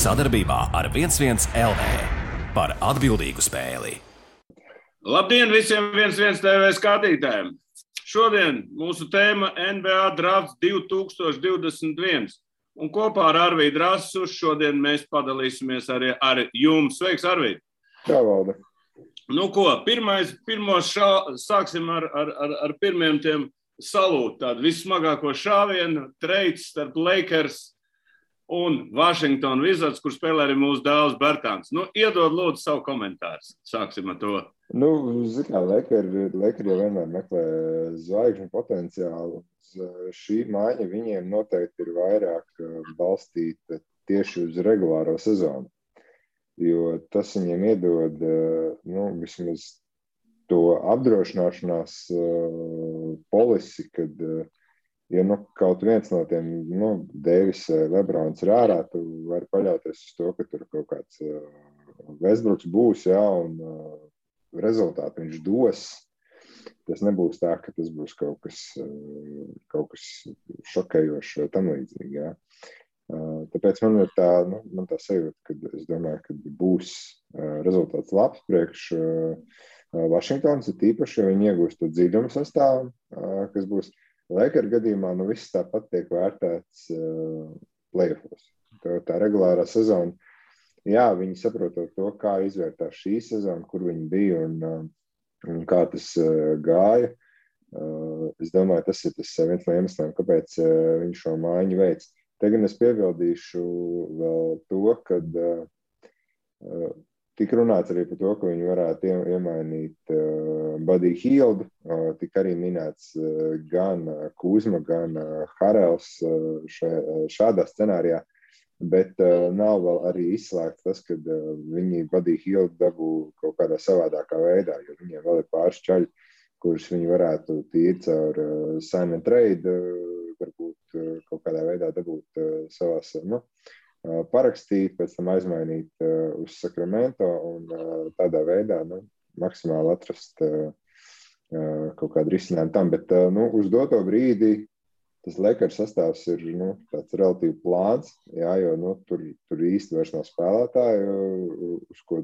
Sadarbībā ar 11 LV par atbildīgu spēli. Labdien visiem 11 TV skatītājiem! Šodien mūsu tēma NBA drafts 2021. Un kopā ar Arvīdu Rasu šodien mēs padalīsimies arī ar jums. Sveiks, Arvīd! Jā, Valde. Nu ko, sāksim ar pirmiem tiem salūt. Tādu vissmagāko šāvienu, treids starp Lakers un Washington Wizards, kur spēlē arī mūsu dēls Bertāns. Nu, iedod lūdzu savu komentāru. Sāksim ar to. Nu, Lakers jau vienmēr meklē zvaigžņu potenciālu. Šī maiņa viņiem noteikti ir vairāk balstīta tieši uz regulāro sezonu. Jo tas viņiem iedod vismaz to apdrošināšanās polisi, kad ja kaut viens no tiem, Deivis, Lebrons ir ārā, tu vari paļauties uz to, ka tur kaut kāds Westbrooks būs, un rezultātu viņš dos. Tas nebūs tā, ka tas būs kaut kas šokējošs vai tam līdzīgi, jā. Tāpēc man ir tā sajūta, ka es domāju, ka būs rezultāts labs priekš Vašingtons, ir tīpaši, ja viņi iegūst to dziļumu sastāvu, kas būs Lakers gadījumā, viss tāpat tiek vērtēts playoffos. Tā regulārā sezona, jā, viņi saprotot to, kā izvērtās šī sezona, kur viņi bija un kā tas gāja. Es domāju, tas ir viens no iemesliem, kāpēc viņi šo maiņu veic. Te gan es piebildīšu vēl to, kad tika runāts arī par to, ka viņi varētu iemainīt Buddy Hieldu, tika arī minēts gan Kuzma, gan Harels šādā scenārijā, bet nav vēl arī izslēgts tas, ka viņi Buddy Hieldu dabū kaut kādā savādākā veidā, jo viņiem vēl ir pāris čaļi, kurus viņi varētu tīri caur sign and trade, varbūt kaut kādā veidā dabūt savās, parakstīt, pēc tam aizmainīt uz Sacramento un tādā veidā, maksimāli atrast kaut kādu risinājumu tam, bet uz doto brīdi tas Lakers sastāvs ir tāds relatīvi plāns, jā, jo tur īsti vairs nav spēlētāju, uz ko,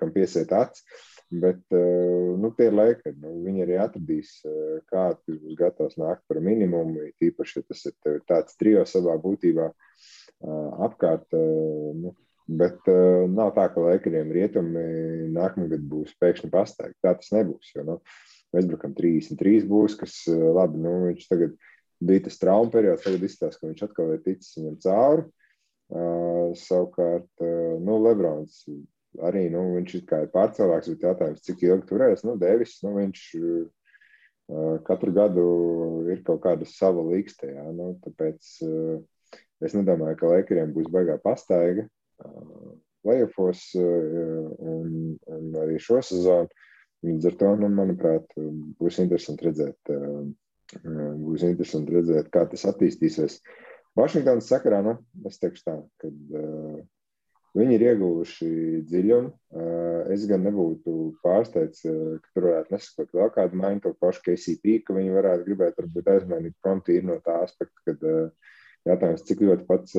kam piesiet acis, bet tie ir Lakers, viņi arī atradīs, kā tas būs gatavs nākt par minimumu, tīpaši, ja tas ir tāds trio savā būtībā apkārt, bet nav tā, ka Lakeriem rietumi nākamgad būs pēkšņi pastaigi. Tā tas nebūs, jo Westbrookam 33 būs, kas labi, viņš tagad bija tas trauma periods, tagad izstāsta, ka viņš atkal ir ticis viņam cauri. Savukārt, Lebrons arī, viņš ir kā pārcēlāks, bet jautājums, cik ilgi turēs, Deivis, viņš katru gadu ir kaut kāda sava līkste, jā, tāpēc es nedomāju, ka Lakeriem būs baigā pastaiga playoffos un arī šo sezonu. Līdz ar to, manuprāt, būs interesanti redzēt, kā tas attīstīsies. Vašingtonas sakarā, es teikšu tā, kad viņi ir ieguvuši dziļumu. Es gan nebūtu pārsteigts, ka tur varētu nesakot vēl kādu maiņu, to pašu KCP, ka viņi varētu gribēt varbūt aizmainīt promptīri no tā aspekta, kad jautājums, cik ļoti pats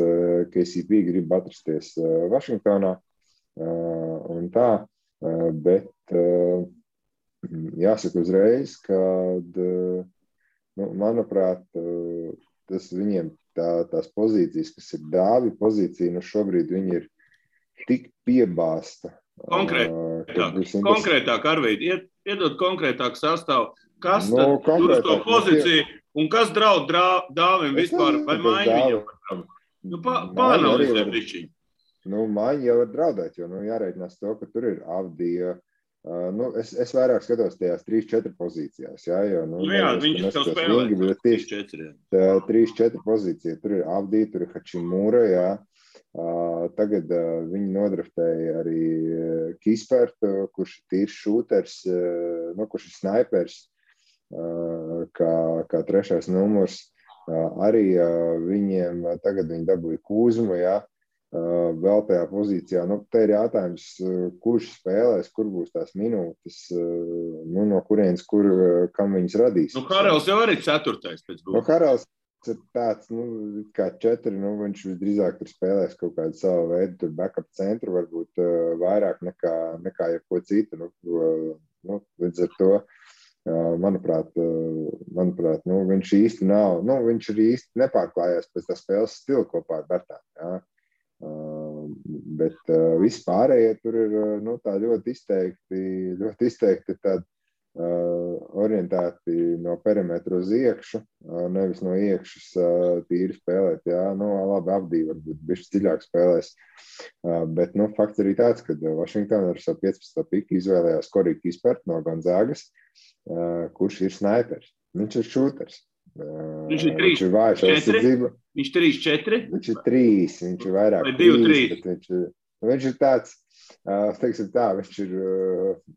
KCP grib atrasties Vašingtonā un tā, bet jāsaka uzreiz, kad, manuprāt, tas viņiem tās pozīcijas, kas ir dāvi pozīcija, šobrīd viņi ir tik piebāsta. Konkrētāk, Arvīd, iedod konkrētāk sastāvu, kas tad tur uz to pozīciju un kas draud dāvim vispār vai maiņu viņam? Pāanalizē bišķiņ. Maiņa jau var draudēt, jo jāreikinās to, ka tur ir Avdija. Es vairāk skatos tajās 3-4 pozīcijās, jā, jo, viņš jau spēlē 3-4 pozīcija, tur ir Avdija, tur ir Hačimūra, jā. Tagad viņi nodraftēja arī Kispertu, kurš ir tīrs šūters, kurš ir snaipers, kā trešais numurs. Arī viņiem tagad viņi dabūja Kuzmu, jā. Vēl tajā pozīcijā. Te ir jautājums, kurš spēlēs, kur būs tās minūtes, no kurienes, kam viņas radīs. Harels jau arī 4. pēc būtības. Harels ir tāds, kā 4, viņš visdrīzāk tur spēlēs kaut kādu savu veidu, tur backup centru, varbūt vairāk nekā jebko citu. Līdz ar to, manuprāt, viņš īsti nav, viņš arī īsti nepārklājās pēc tā spēles stila kopā ar Bertānu, jā. Bet viss pārējie tur ir, tā ļoti izteikti tādi orientēti no perimetra uz iekšu, nevis no iekšas tīri spēlēt, jā, labi, Abdī varbūt bišķi dziļāk spēlēs, bet, fakts arī tāds, ka Washington ar savu 15. piku izvēlējās Corey Kispert no Gonzagas, kurš ir snaipers, viņš ir šūters. Viņš ir 3, 4? Viņš 3, 4? Viņš ir 3, viņš ir vairāk 3, bet viņš ir tāds, teiksim tā, viņš ir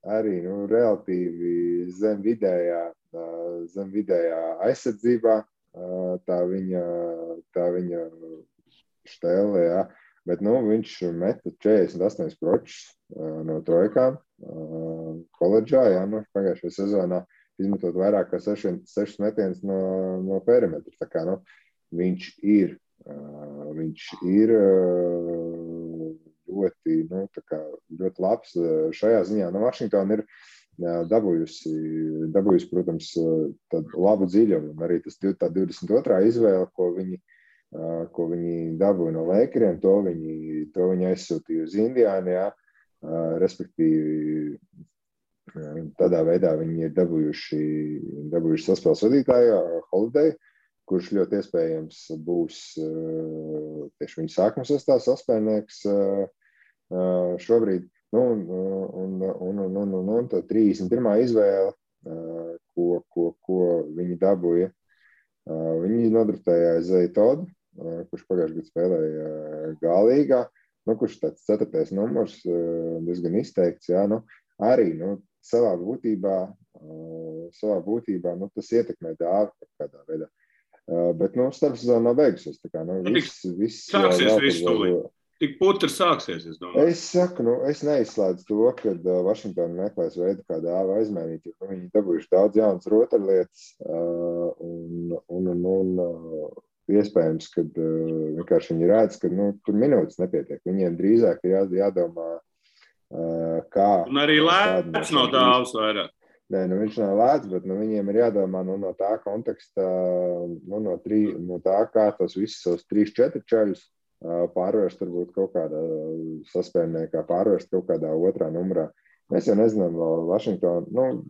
arī, relatīvi zem vidējā aizsardzībā, tā viņa štēle, jā, bet, viņš meta 48 pročus no trojkām koledžā, jā, pagājušajā sezonā izmetot vairāk kā 6 metienus no perimetra. Tā kā, viņš ir ļoti labs šajā ziņā. Washington ir dabūjusi, protams, tādu labu dziļumu. Arī tas tā 22. izvēle, ko viņi dabūja no Lakeriem, to viņi aizsūtīja uz Indiānu, jā, respektīvi tādā veidā viņi ir dabūjuši saspēles vadītāju Holiday, kurš ļoti iespējams būs tieši viņa sākuma sastāvā saspēlnieks šobrīd. Un tā 31. izvēle, ko viņi dabūja, viņi nodraftēja Isaiah Todd, kurš pagājušajā gadā spēlēja G-līgā, kurš tāds 4. numurs, diezgan izteikts, jā, arī, savā būtībā, tas ietekmē dāvi kādā veidā. Bet, starpsezona nav beigusies. Tā kā, viss sāksies viss tūlīt. Tik putrs sāksies, es domāju. Es saku, es neizslēdzu to, kad Washington meklēs veidu, kā dāvu aizmainīt, jo viņi dabūjuši daudz jaunas rotaļlietas, un iespējams, kad vienkārši viņi redz, ka, tur minūtes nepietiek. Viņiem drīzāk ir jādomā, kā. Un arī lēts no dāvas vairāk. Nē, viņš nav lēts, bet viņiem ir jādomā no tā konteksta, no tā, kā tos visus savus 3-4 čaļus pārvērst varbūt kaut kādā saspēlniekā, pārvērst kaut kādā otrā numurā. Mēs jau nezinām,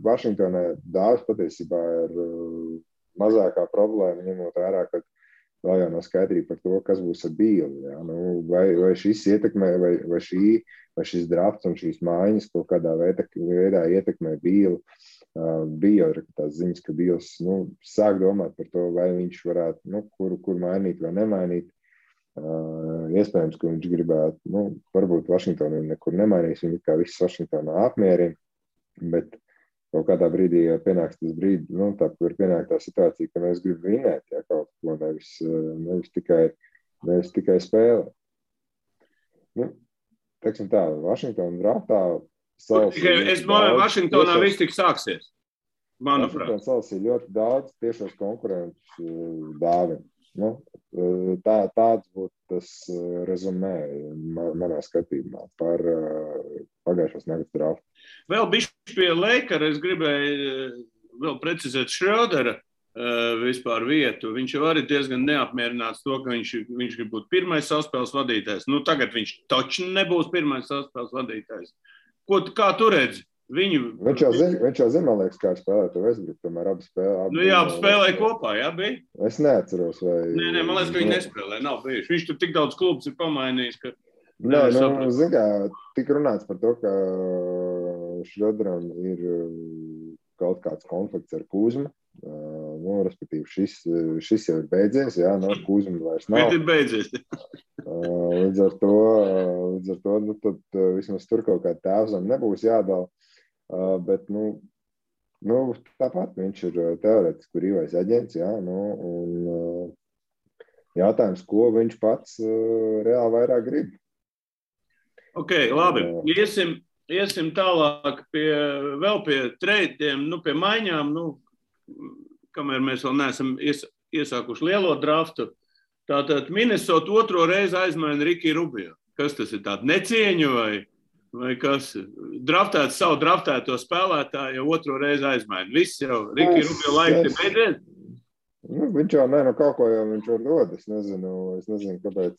Vašingtonē dāvas patiesībā ir mazākā problēma, ņemot vērā, ka vēl jau nav skaidrība par to, kas būs ar Bīli. Ja? Vai šis ietekmē, vai šis drafts un šīs mājiņas kaut kādā veidā ietekmē Bīli. Bija jau tās ziņas, ka Bīls sāk domāt par to, vai viņš varētu, kur mainīt vai nemainīt. Iespējams, ka viņš gribētu, varbūt Vašingtonu nekur nemainīs, viņi kā viss Vašingtonā apmierina, bet kaut kādā brīdī pienāks tas brīdi, tā ir pienāk tā situācija, ka mēs gribam vinēt, ja, kaut ko nevis tikai spēlēt. Teiksim tā, Vašingtona draftā Es domāju, Vašingtonā viss tik sāksies, manuprāt. Vašingtona salasīja ļoti daudz tiešos konkurentus dāvim. Tāds būtu tas rezumē manā skatījumā par pagājušās nakts draftu. Vēl bišķi pie Lakera es gribēju vēl precizēt Šrödera vispār vietu. Viņš jau arī diezgan neapmierināts to, ka viņš grib būt pirmais saspēles vadītājs. Tagad viņš taču nebūs pirmais saspēles vadītājs. Kā tu redzi? Viņš jau zina, man liekas, kā spēlēt to Westbrook, tomēr abi spēlē. Abi spēlēja kopā, jā, bija? Es neatceros, vai... Nē, man liekas, ka viņi nespēlē, nav bijuši. Viņš tur tik daudz klubus ir pamainījis, ka... Nē, zin kā, tik runāts par to, ka Šröderam ir kaut kāds konflikts ar Kuzmu. Respektīvi, šis jau ir beidzies, jā, Kuzma vairs nav. Bet ir beidzies. Līdz ar to, tad vismaz tur kaut kāda tēvzem nebūs jādala. Bet, tāpat viņš ir teorētiski brīvais aģents, jā, un jautājums, ko viņš pats reāli vairāk grib. Ok, labi. Iesim tālāk vēl pie treidiem, pie maiņām, kamēr mēs vēl neesam iesākuši lielo draftu. Tātad Minnesota otro reizi aizmaina Riki Rubio. Kas tas ir, tāda necieņa vai kas? Draftēts savu draftēto spēlētāju jau otro reizi aizmaina. Viss jau Riki Rubio laika ir beidzies. Viņš jau kaut ko jau viņš var dod. Es nezinu, kāpēc,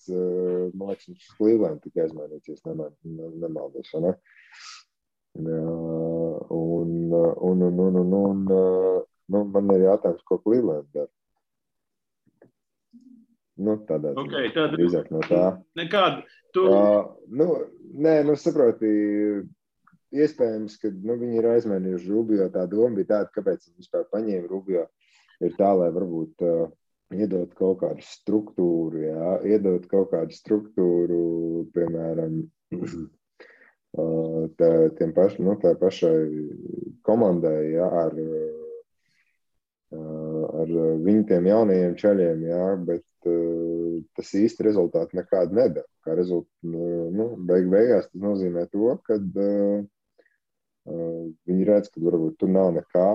man liekas, viņš Cleveland tikai aizmainīties, nemaldos, vai ne? Man ir jātājums, ko Cleveland dara. Tādā drīzāk no tā. Nekādu. Saproti, iespējams, ka viņi ir aizmainījuši Rubio. Tā doma bija tāda, kāpēc viņi vispār paņēma Rubio. Ir tā, lai varbūt iedot kaut kādu struktūru, iedot kaut kādu struktūru, piemēram, tā pašai komandai, ar viņu tiem jaunajiem čaļiem, bet tas īsti rezultāti nekādu nedara. Kā beigās tas nozīmē to, ka viņi redz, ka varbūt tur nav nekā,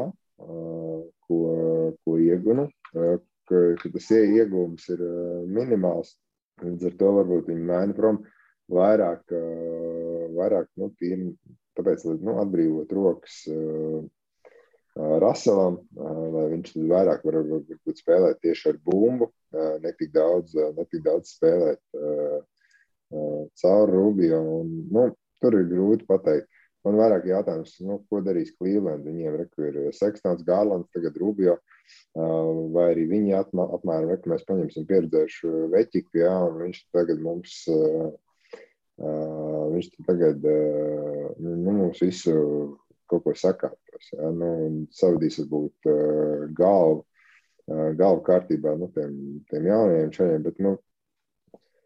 ko iegunu, ka tas ieguvums ir minimāls. Līdz ar to varbūt viņi maina prom vairāk tāpēc, lai atbrīvot rokas Russellam, lai viņš vairāk varbūt spēlēt tieši ar bumbu, netik daudz spēlēt caur Rubio. Tur ir grūti pateikt. Man vairāk jautājums, ko darīs Cleveland? Viņiem ir Sextons, Garlands, tagad Rubio, vai arī viņi apmēram, mēs paņemsim pieredzējušu veķiku, un viņš tagad mums visu kaut ko sakārtos, savadīs varbūt galvu kārtībā, tiem jaunajiem čaļiem, bet,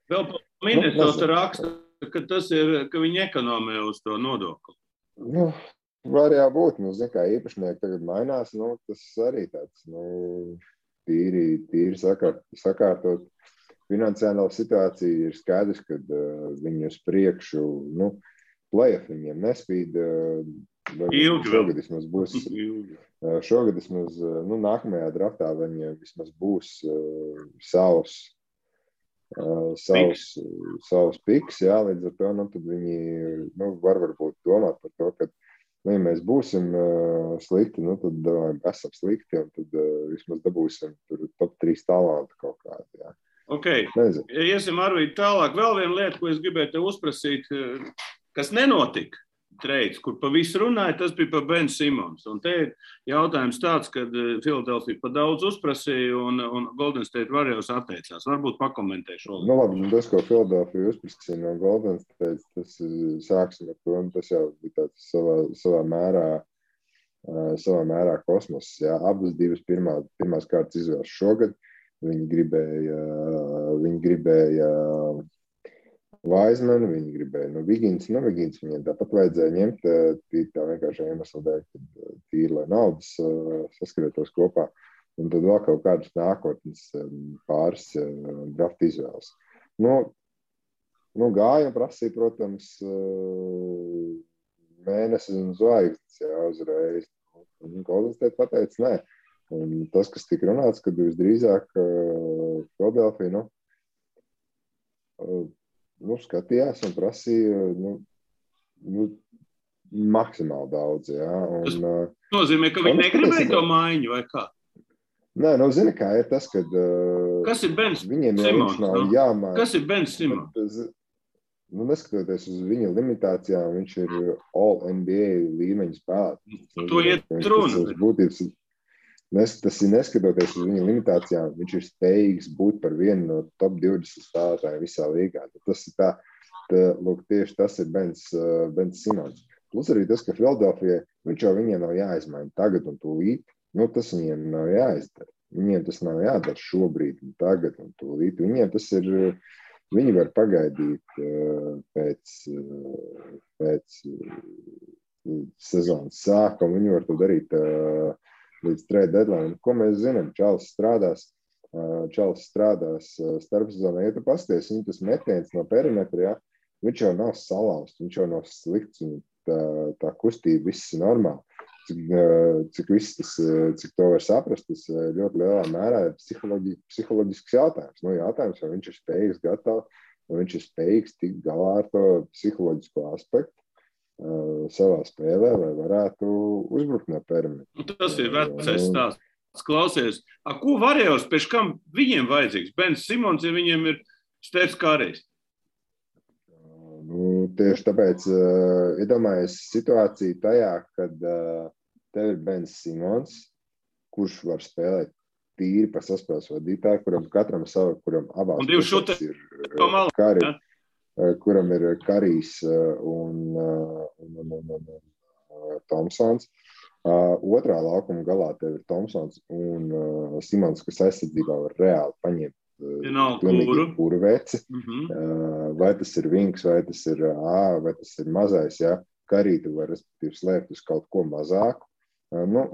Vēl pa Minnesota raksta, ka tas ir, ka viņi ekonomē uz to nodokli. Var jābūt, kā īpašnieki tagad mainās, tas arī tāds, tīri sakārtot finansiālo situāciju. Ir skaidrs, ka viņi uz priekšu, play-off viņiem nespīd, šogad vismaz būs, nākamajā draftā viņiem vismaz būs savs piks, līdz ar to, tad viņi varbūt domāt par to, ka, ja mēs būsim slikti, tad esam slikti, un tad vismaz dabūsim tur top 3 talantu kaut kādu, Ok, iesim Arvīd tālāk. Vēl viena lieta, ko es gribēju te uzprasīt, kas nenotika. Trades, kur pa visu runāja, tas bija par Ben Simons. Un te ir jautājums tāds, kad Philadelphia pa daudz uzprasīja un Golden State Warriors atteicās. Varbūt pakomentē šo. Labi, tas, ko Philadelphia uzprasīja no Golden State, tas sāksim ar to, un tas jau bija tāds savā mērā kosmos. Abas divas pirmās kārtas izvēles šogad. Viņi gribēja Wiseman, viņi gribēja Vigins. Vigins viņiem tāpat vajadzēja ņemt tā vienkārši iemesla dēļ, tīri, lai naudas saskrietos kopā. Un tad vēl kaut kādas nākotnes pāris draft izvēles. Gāja un prasīja, protams, mēnesis un zvaigznes uzreiz. Golden State pateica, nē. Un tas, kas tika runāts, kad visdrīzāk Philadelphia, skatījās un prasīja maksimāli daudz. Tas nozīmē, ka viņi negribēja to maiņu vai kā? Nē, zini, kā ir tas, kad kas ir Ben Simons? Kas ir Ben Simons? Neskatoties uz viņa limitācijām, viņš ir All-NBA līmeņa spēlētājs. To iet runa. Tas ir neskatoties uz viņa limitācijām, viņš ir spējīgs būt par vienu no top 20 spēlētājiem visā līgā. Tas ir tieši tas ir Ben Simons. Plus arī tas, ka Philadelphia, viņš jau viņiem nav jāizmaina tagad un tūlīt, tas viņiem nav jāizdara. Viņiem tas nav jādara šobrīd un tagad un tūlīt. Viņiem tas ir, viņi var pagaidīt pēc sezonas sākuma, viņi var to darīt līdz trade deadline. Ko mēs zinām? Čalis strādās starpsezonā. Ja tu pasties, viņa tas metiens no perimetra, viņš jau nav salauzts, viņš jau nav slikts, tā kustība viss ir normāli. cik to var saprast, tas ļoti lielā mērā ir psiholoģisks jautājums. Jautājums, vai viņš ir spējīgs vai viņš ir spējīgs tikt galā ar to psiholoģisko aspektu savā spēlē, lai varētu uzbrukt no perimetra. Tas ir vecais stāsts. Klausies, ko Varejos, pēc kam viņiem vajadzīgs? Bens Simons, ja viņiem ir Stefs Karijs? Tieši tāpēc iedomājies situāciju tajā, kad tev ir Bens Simons, kurš var spēlēt tīri pa saspēles vadītāju, kuram abās pusēs ir Kari, kuram ir Karijs un Tomsons. Otrā laukuma galā tev ir Tomsons un Simons, kas aizsardzībā var reāli paņemt pilnīgi kuru veci. Vai tas ir Vinks, vai tas ir vai tas ir mazais, ja? Karī tu var respektīvi slēpt uz kaut ko mazāku,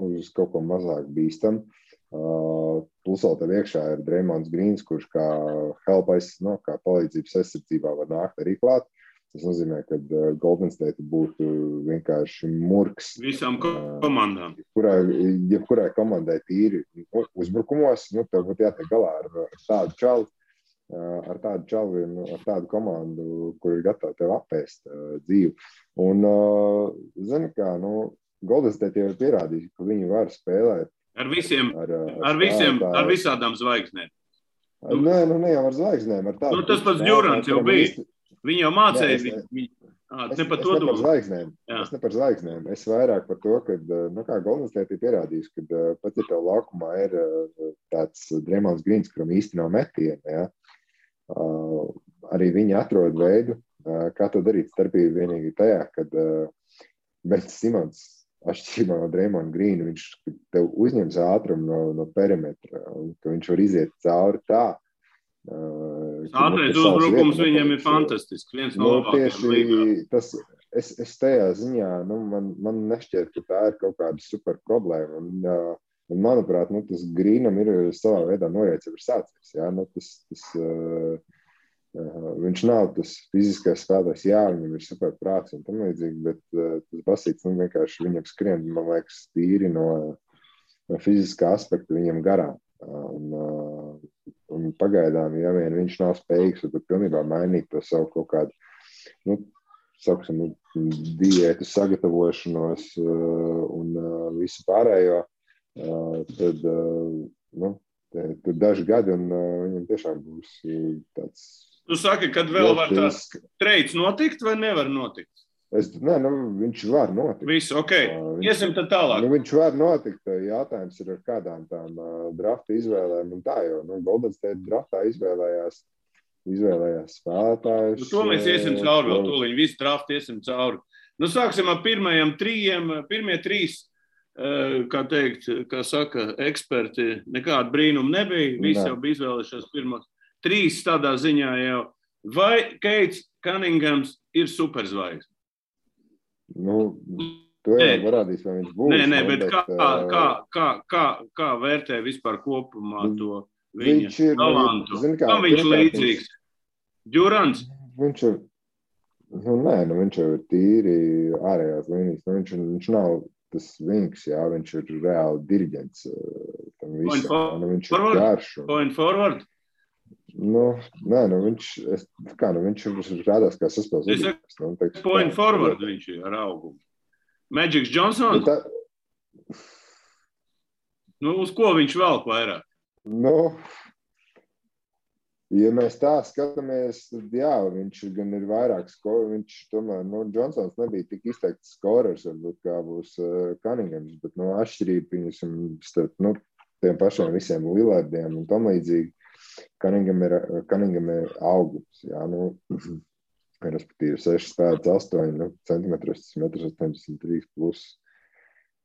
uz kaut ko mazāk bīstam. Plus vēl tev iekšā ir Draymonds Greens, kurš kā kā palīdzības aizsardzībā var nākt arī klāt. Tas nozīmē, ka Golden State būtu vienkārši murks. Visām komandām. Jebkurai komandai tīri uzbrukumos, tev būtu jātiek galā ar tādu čalu, ar tādu komandu, kur ir gatava tev apēst dzīvi. Un, zini kā, Golden State jau ir pierādījis, ka viņi var spēlēt ar visādām zvaigznēm. Nē, ne jau ar zvaigznēm. Tas pats Durants jau bija. Viņi jau mācēja. Es ne par zvaigznēm. Es vairāk par to, ka Golden State ir pierādījis, ka pat ja tev laukumā ir tāds Draymonds Greens, kuram īsti nav metiena, ja, arī viņi atrod veidu, kā to darīt. Starpība vienīgi tajā, kad Bens Simons, atšķirībā no Draymonda Greena, viņš tev uzņems ātrumu no perimetra, un ka viņš var iziet cauri tā. Ātrais uzbrukums viņam ir fantastisks. Viens no labākajiem līgā. Es tajā ziņā, man nešķiet, ka tā ir kaut kāda super problēma. Un manuprāt, tas Greenam ir savā veidā norēdz jau ir sācies. Ja? Viņš nav tas fiziskais spēlētājs, viņam ir super prāts un tam līdzīgi, bet tas basīts vienkārši viņam skrien, man liekas, tīri no fiziskā aspekta viņam garām. Un pagaidām, ja vien viņš nav spējīgs, tad pilnībā mainīt to savu kaut kādu, diētu sagatavošanos un visu pārējo, tad daži gadi un viņam tiešām būs tāds. Tu saki, kad vēl var tās treids notikt vai nevar notikt? Viņš var notikt. Visu, iesim tad tālāk. Viņš var notikt. Jātājums ir ar kādām tām drafta izvēlēm un tā, jo Golden State draftā izvēlējās spēlētājus. To mēs iesim cauri vēl tūliņ, visu draftu iesim cauri. Sāksim ar pirmajiem trījiem. Pirmie trīs, kā saka eksperti, nekāda brīnuma nebija. Visi jau bija izvēlējušies pirmos. Trīs tādā ziņā jau. Vai Keits Cunninghams ir superzvaigzne? To jau parādīs, vai viņš būs. Nē, bet kā vērtē vispār kopumā to viņa talantu? Kam viņš līdzīgs? Durants? Viņš ir, viņš jau ir tīri ārējās līnijas. Viņš nav tas Vinks, viņš ir reāli diriģents tam visam. Viņš ir garš. Point forward? Viņš rādās kā saspēles. Point forward viņš ir ar augumu. Magic Johnson? Uz ko viņš velk vairāk? Ja mēs tā skatāmies, tad viņš gan ir vairāk skoru. Viņš tomēr, Johnsons nebija tik izteikts skorers, varbūt kā būs Cunninghams, bet atšķirība starp tiem pašiem visiem Lillardiem un tam līdzīgi. Cunningham ir augums, respektīvi 6 spēlēts 8 centimetrus, 1,83 plus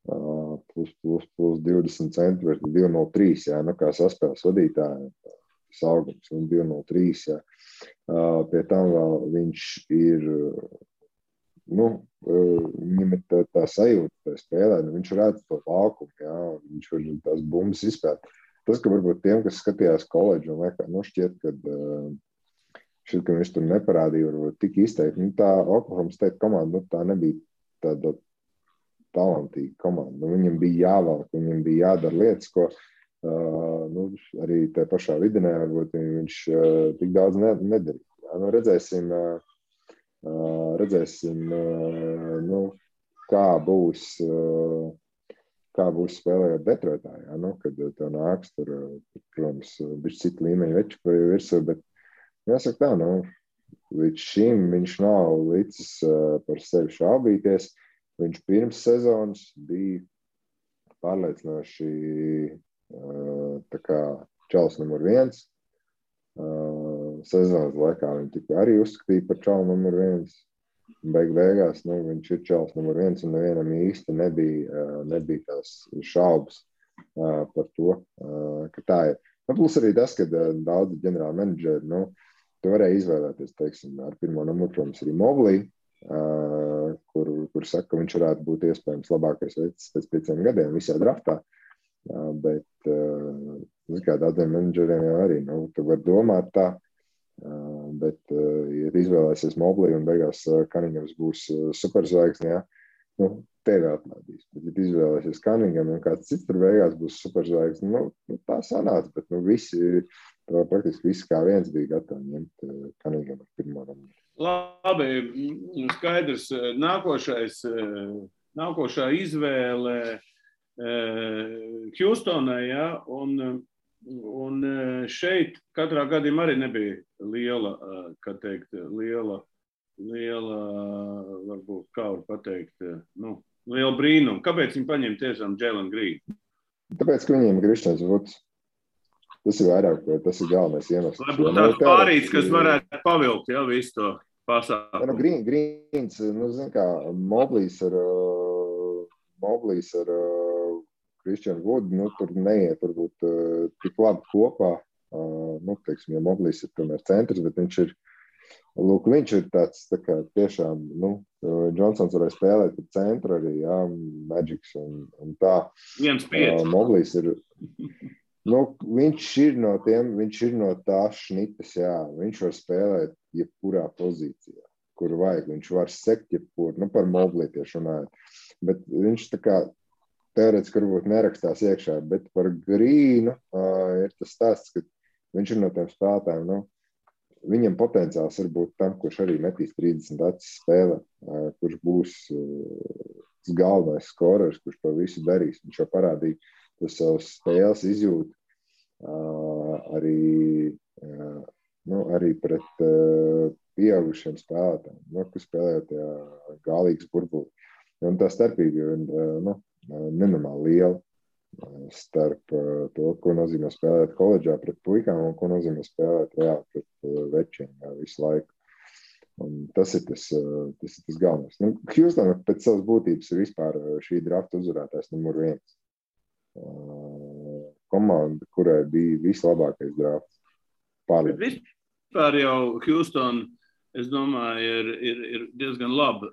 20 centimetri, 2,03, kā saspēles vadītāji, tas augums, un 2,03, Pie tam vēl viņš ir, viņam ir tā sajūta, tā spēlē, viņš redz to laukumu, viņš var tās bumbas izspēt. Tas, ka varbūt tiem, kas skatījās koledžu, un šķiet, ka viņš tur neparādīja varbūt tik izteikti. Tā Oklahoma State komanda, tā nebija talantīga komanda. Nu, viņam bija jāvelk, viņam bija jādara lietas, ko arī tajā pašā videnē varbūt viņš tik daudz nedarīja. Nu, redzēsim kā būs spēlējot Detroitā, kad tev nāks tur, protams, bišķi citu līmeņu veči virsū, bet jāsaka tā, līdz šim viņš nav licis par sevi šaubīties. Viņš pirms sezonas bija pārliecinoši tā kā čalis numur 1. Sezonas laikā viņi tikai arī uzskatīja par čalu numur 1. Beigās viņš ir čalis numur 1 un nevienam īsti nebija tās šaubas par to, ka tā ir. Plus arī tas, ka daudzi ģenerāli menedžeri, tu varēja izvēlēties, teiksim, ar pirmo numuru, protams, arī Mobley, kur saka, ka viņš varētu būt iespējams labākais veids pēc 5 gadiem visā draftā. Bet, daudziem menedžeriem jau arī, tu vari domāt tā, bet, ja izvēlēsies Mobley un beigās Cunninghams būs superzvaigzne, tevi atlaidīs. Bet, ja izvēlēsies Cunningham un kāds cits tur beigās būs superzvaigzne, tā sanāca, bet praktiski visi kā viens bija gatavi ņemt Cunningham ar pirmo numuru. Labi, skaidrs. Nākošā izvēle Hjūstonai, un šeit katrā gadījumā arī nebija liela, varbūt, kā var pateikt, liela brīnuma. Kāpēc viņi paņem tiešām Jalen Green? Tāpēc, ka viņiem ir Kristians Vuds. Tas ir vairāk, tas ir galvenais iemesls. Lai būtu tāds pārīts, kas varētu pavilkt, visu to pasākumu. Greens, zin kā, Mobleys ar Kristianu Vudu, tur neiet varbūt tik labi kopā. Teiksim, ja Mobleys ir tomēr centrs, bet viņš ir tāds, tā kā tiešām, Johnsons varēja spēlēt par centru arī, Magics un tā. 1-5. Mobleys ir, viņš ir no tās šnitas, viņš var spēlēt jebkurā pozīcijā, kur vajag, viņš var sekt jebkur, par Mobley tieši runājot, bet viņš tā kā teorētiski varbūt nerakstās iekšā, bet par Grīnu ir tas stāsts, ka viņš ir no tiem spēlētājiem, viņam potenciāls var būt tam, kurš arī metīs 30 acis spēlē, kurš būs galvenais skorers, kurš to visu darīs. Viņš jau parādīja to savas spēles izjūt arī pret pieaugušiem spēlētājiem, kas spēlējot galīgas burbuli. Un tā starpība ir nenormāli liela starp to, ko nozīmē spēlēt koledžā pret puikām un ko nozīmē spēlēt pret večiem visu laiku. Un tas ir tas galvenais. Hjūstonā pēc savas būtības ir vispār šī drafta uzvarētājs numur 1. Komanda, kurai bija vislabākais drafts. Bet vispār jau Hjūstona, es domāju, ir diezgan laba.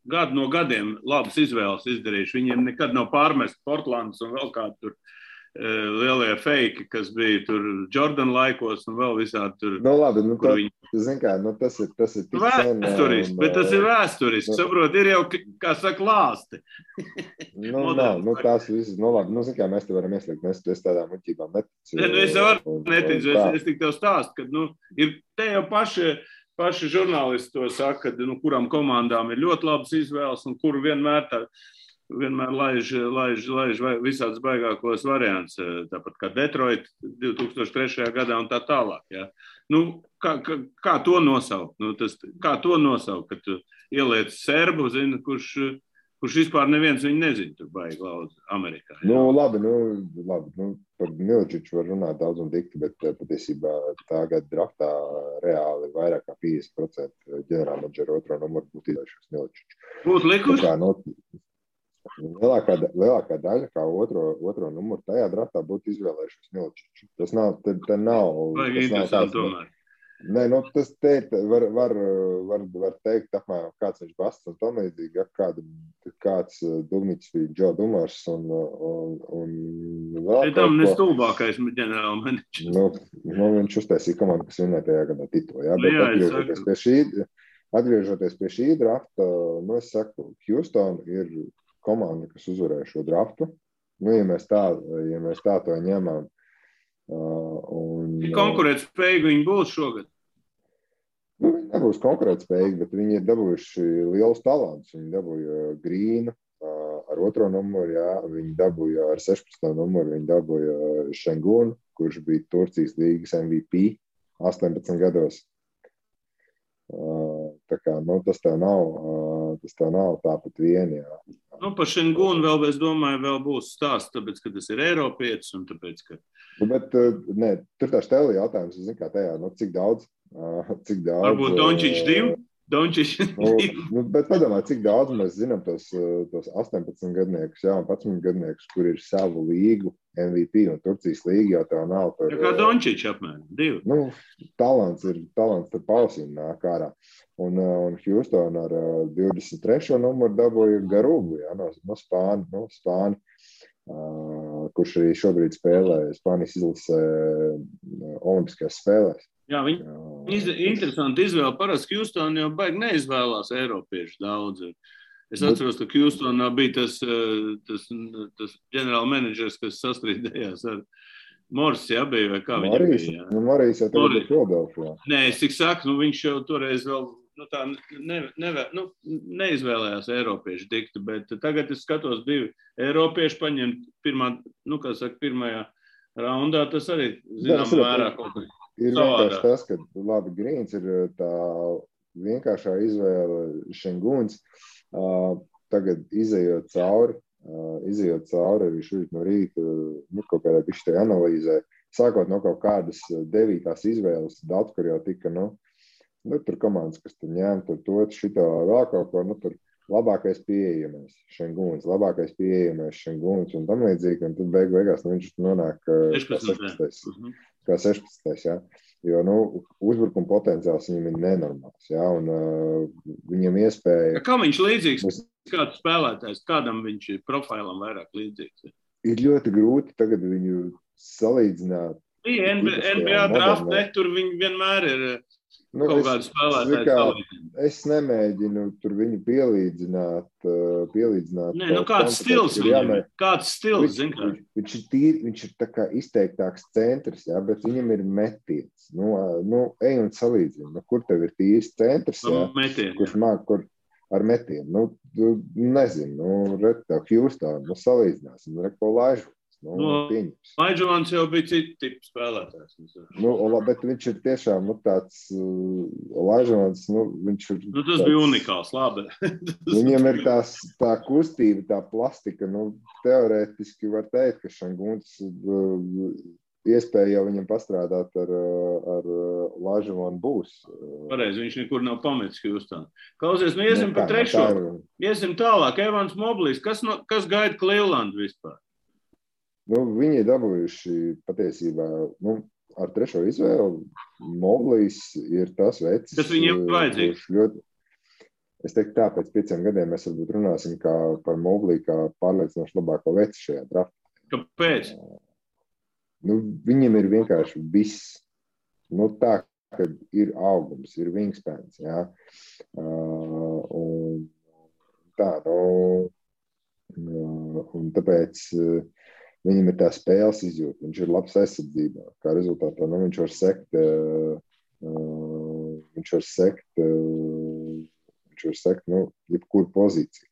Gadu no gadiem labas izvēles izdarījuši. Viņiem nekad nav pārmest Portlands un vēl kādi tur lielie feiki, kas bija tur Jordan laikos un vēl visādi tur. Labi, tas ir tik vēsturiski, bet tas ir vēsturiski. Saprot, ir jau, kā saka, lāsti. Tās visas, labi, mēs te varam ieslēgt, es tādām muļķībām neticu. Es varu neticu, es tik tev stāstu, ka, ir te jau paši žurnālisti to saka, ka kurām komandām ir ļoti labas izvēles un kuru vienmēr laiž visādas baigākos variants, tāpat kā Detroit 2003. Gadā un tā tālāk. Ja. Kā to nosaukt? Kā to nosaukt, kad tu ieliec serbu, zini, kurš vispār neviens viņu nezina, tur baigi laudz Amerikā. Ja. Labi, par Miličiču var runāt daudz un dikti, bet patiesībā tā gada draftā reāli vairāk kā 50% ģenerālmenedžera otro numuru būtu izvēlējušies Miličiču. Būtu likuši? Lielākā daļa, kā otro numuru tajā draftā būtu izvēlējušies Miličiču. Tas nav Vajag interesanti tomēr. Nē, tas te var teikt, apmēram kāds viņš Basts un tam līdzīgi, kāds Dugniķis bija Džo Dumars un vēl tam nestulbākais ģenerālmenedžers. Viņš uztaisīja komandu, kas vinnēja tajā gadā titulu. Jā, bet atgriežoties pie šī drafta, es saku, Hjūstona ir komanda, kas uzvarēja šo draftu. Nu, ja mēs tā to ņemam. Konkurētspējīgi viņi būs šogad? Nu, viņi nebūs konkurētspējīgi, bet viņi ir dabūjuši lielus talantus. Viņi dabūja Grīnu ar 2. numuru, jā. Viņi dabūja ar 16. numuru, viņi dabūja Şengunu, kurš bija Turcijas līgas MVP 18 gados. Tā kā, nu, tas tev nav tāpat vien, jā. Nu, par Šengunu vēl, es domāju, vēl būs stāsts, tāpēc, ka tas ir Eiropietis un tāpēc, ka... Nu, bet, nē, tur tā štēli jautājums, es zinu, kā tajā, nu, cik daudz? Varbūt Dončić 2? Dončić 2? Nu, bet padomā, cik daudz mēs zinām tos 18 gadniekus, jā, un 11 gadniekus, kur ir savu līgu MVP un Turcijas līga, jau tev nav par... Ja kā Dončić apmēram, 2. Nu, talants tur pausīm nāk ārā. Un Houston ar 23. numuru dabūja Garugu, jā, no Spāni, kurš arī šobrīd spēlē Spānijas izlasē olimpiskajās spēlēs. Jā, viņi interesanti izvēle. Parasti Houston jau baigi neizvēlās eiropiešu daudz. Es atceros, ka Houstonā bija tas ģenerāla menedžers, kas sastrīdējās ar Morris, jā, bija, vai kā viņam bija? Nu, Morris jau tagad ir Philadelphijā. Nē, es tik saku, nu viņš jau toreiz vēl neizvēlējās eiropiešu diktu, bet tagad es skatos 2 eiropieši paņemt pirmajā raundā, tas arī zinām mērā kaut kā. Ir vienkārši tas, ka labi, Grīns ir tā vienkāršā izvēle Šenguns. Tagad izejot cauri arī šeit no rīta, kaut kādā bišķi analīzē, sākot no kaut kādas 9. izvēles, daudz, kur jau tika, tur komandas, kas tur ņēma, tur šito vēl kaut ko, tur labākais pieejamais Šenguns, un tam līdzīgi, un tad beigās viņš nonāk 16. Kā 16. Jā. Jo, uzbrukuma potenciāls viņam ir nenormāls, jā, un viņam iespēja... Kā viņš līdzīgs, kāds spēlētājs, kādam viņš profilam vairāk līdzīgs? Ir ļoti grūti tagad viņu salīdzināt. NBA draftē, tur viņi vienmēr ir kaut kādu spēlētāju. Es nemēģinu tur viņu pielīdzināt. Nē, kāds stils viņam ir? Kāds stils, zin kā? Viņš ir tā kā izteiktāks centrs, jā, bet viņam ir metiens. Ej un salīdzini. Kur tev ir tīrs centrs, jā? Kurš māk, ar metienu. Nezinu, tev Houston, salīdzināsim, ko Laižu. Laižovans jau bija cita tipa spēlētājs. Bet viņš ir tiešām tāds Laižovans, viņš ir... tas bija unikāls, labi. Viņam ir tā kustība, tā plastika, teorētiski var teikt, ka Šenguns iespēja jau viņam pastrādāt ar Laižovanu būs. Pareizi, viņš nekur nav pametis Houston. Klausies, iesim par 3. Iesim tālāk, Evans Moblīs, kas gaida Cleveland vispār? Viņi ir dabūjuši patiesībā, ar 3. izvēli. Moblīs ir tas veids. Kas viņiem vajadzīgs? Es teiktu tā, pēc 5 gadiem mēs varbūt runāsim par Moblī kā pārliecinoši labāko veci šajā draftā. Kāpēc? Viņam ir vienkārši viss. Tā, ka ir augums, ir wingspans, jā. Un tā, un tāpēc... Viņam ir tā spēles izjūta, viņš ir labs aizsardzībā. Kā rezultātā viņš var sekt, jebkuru pozīciju.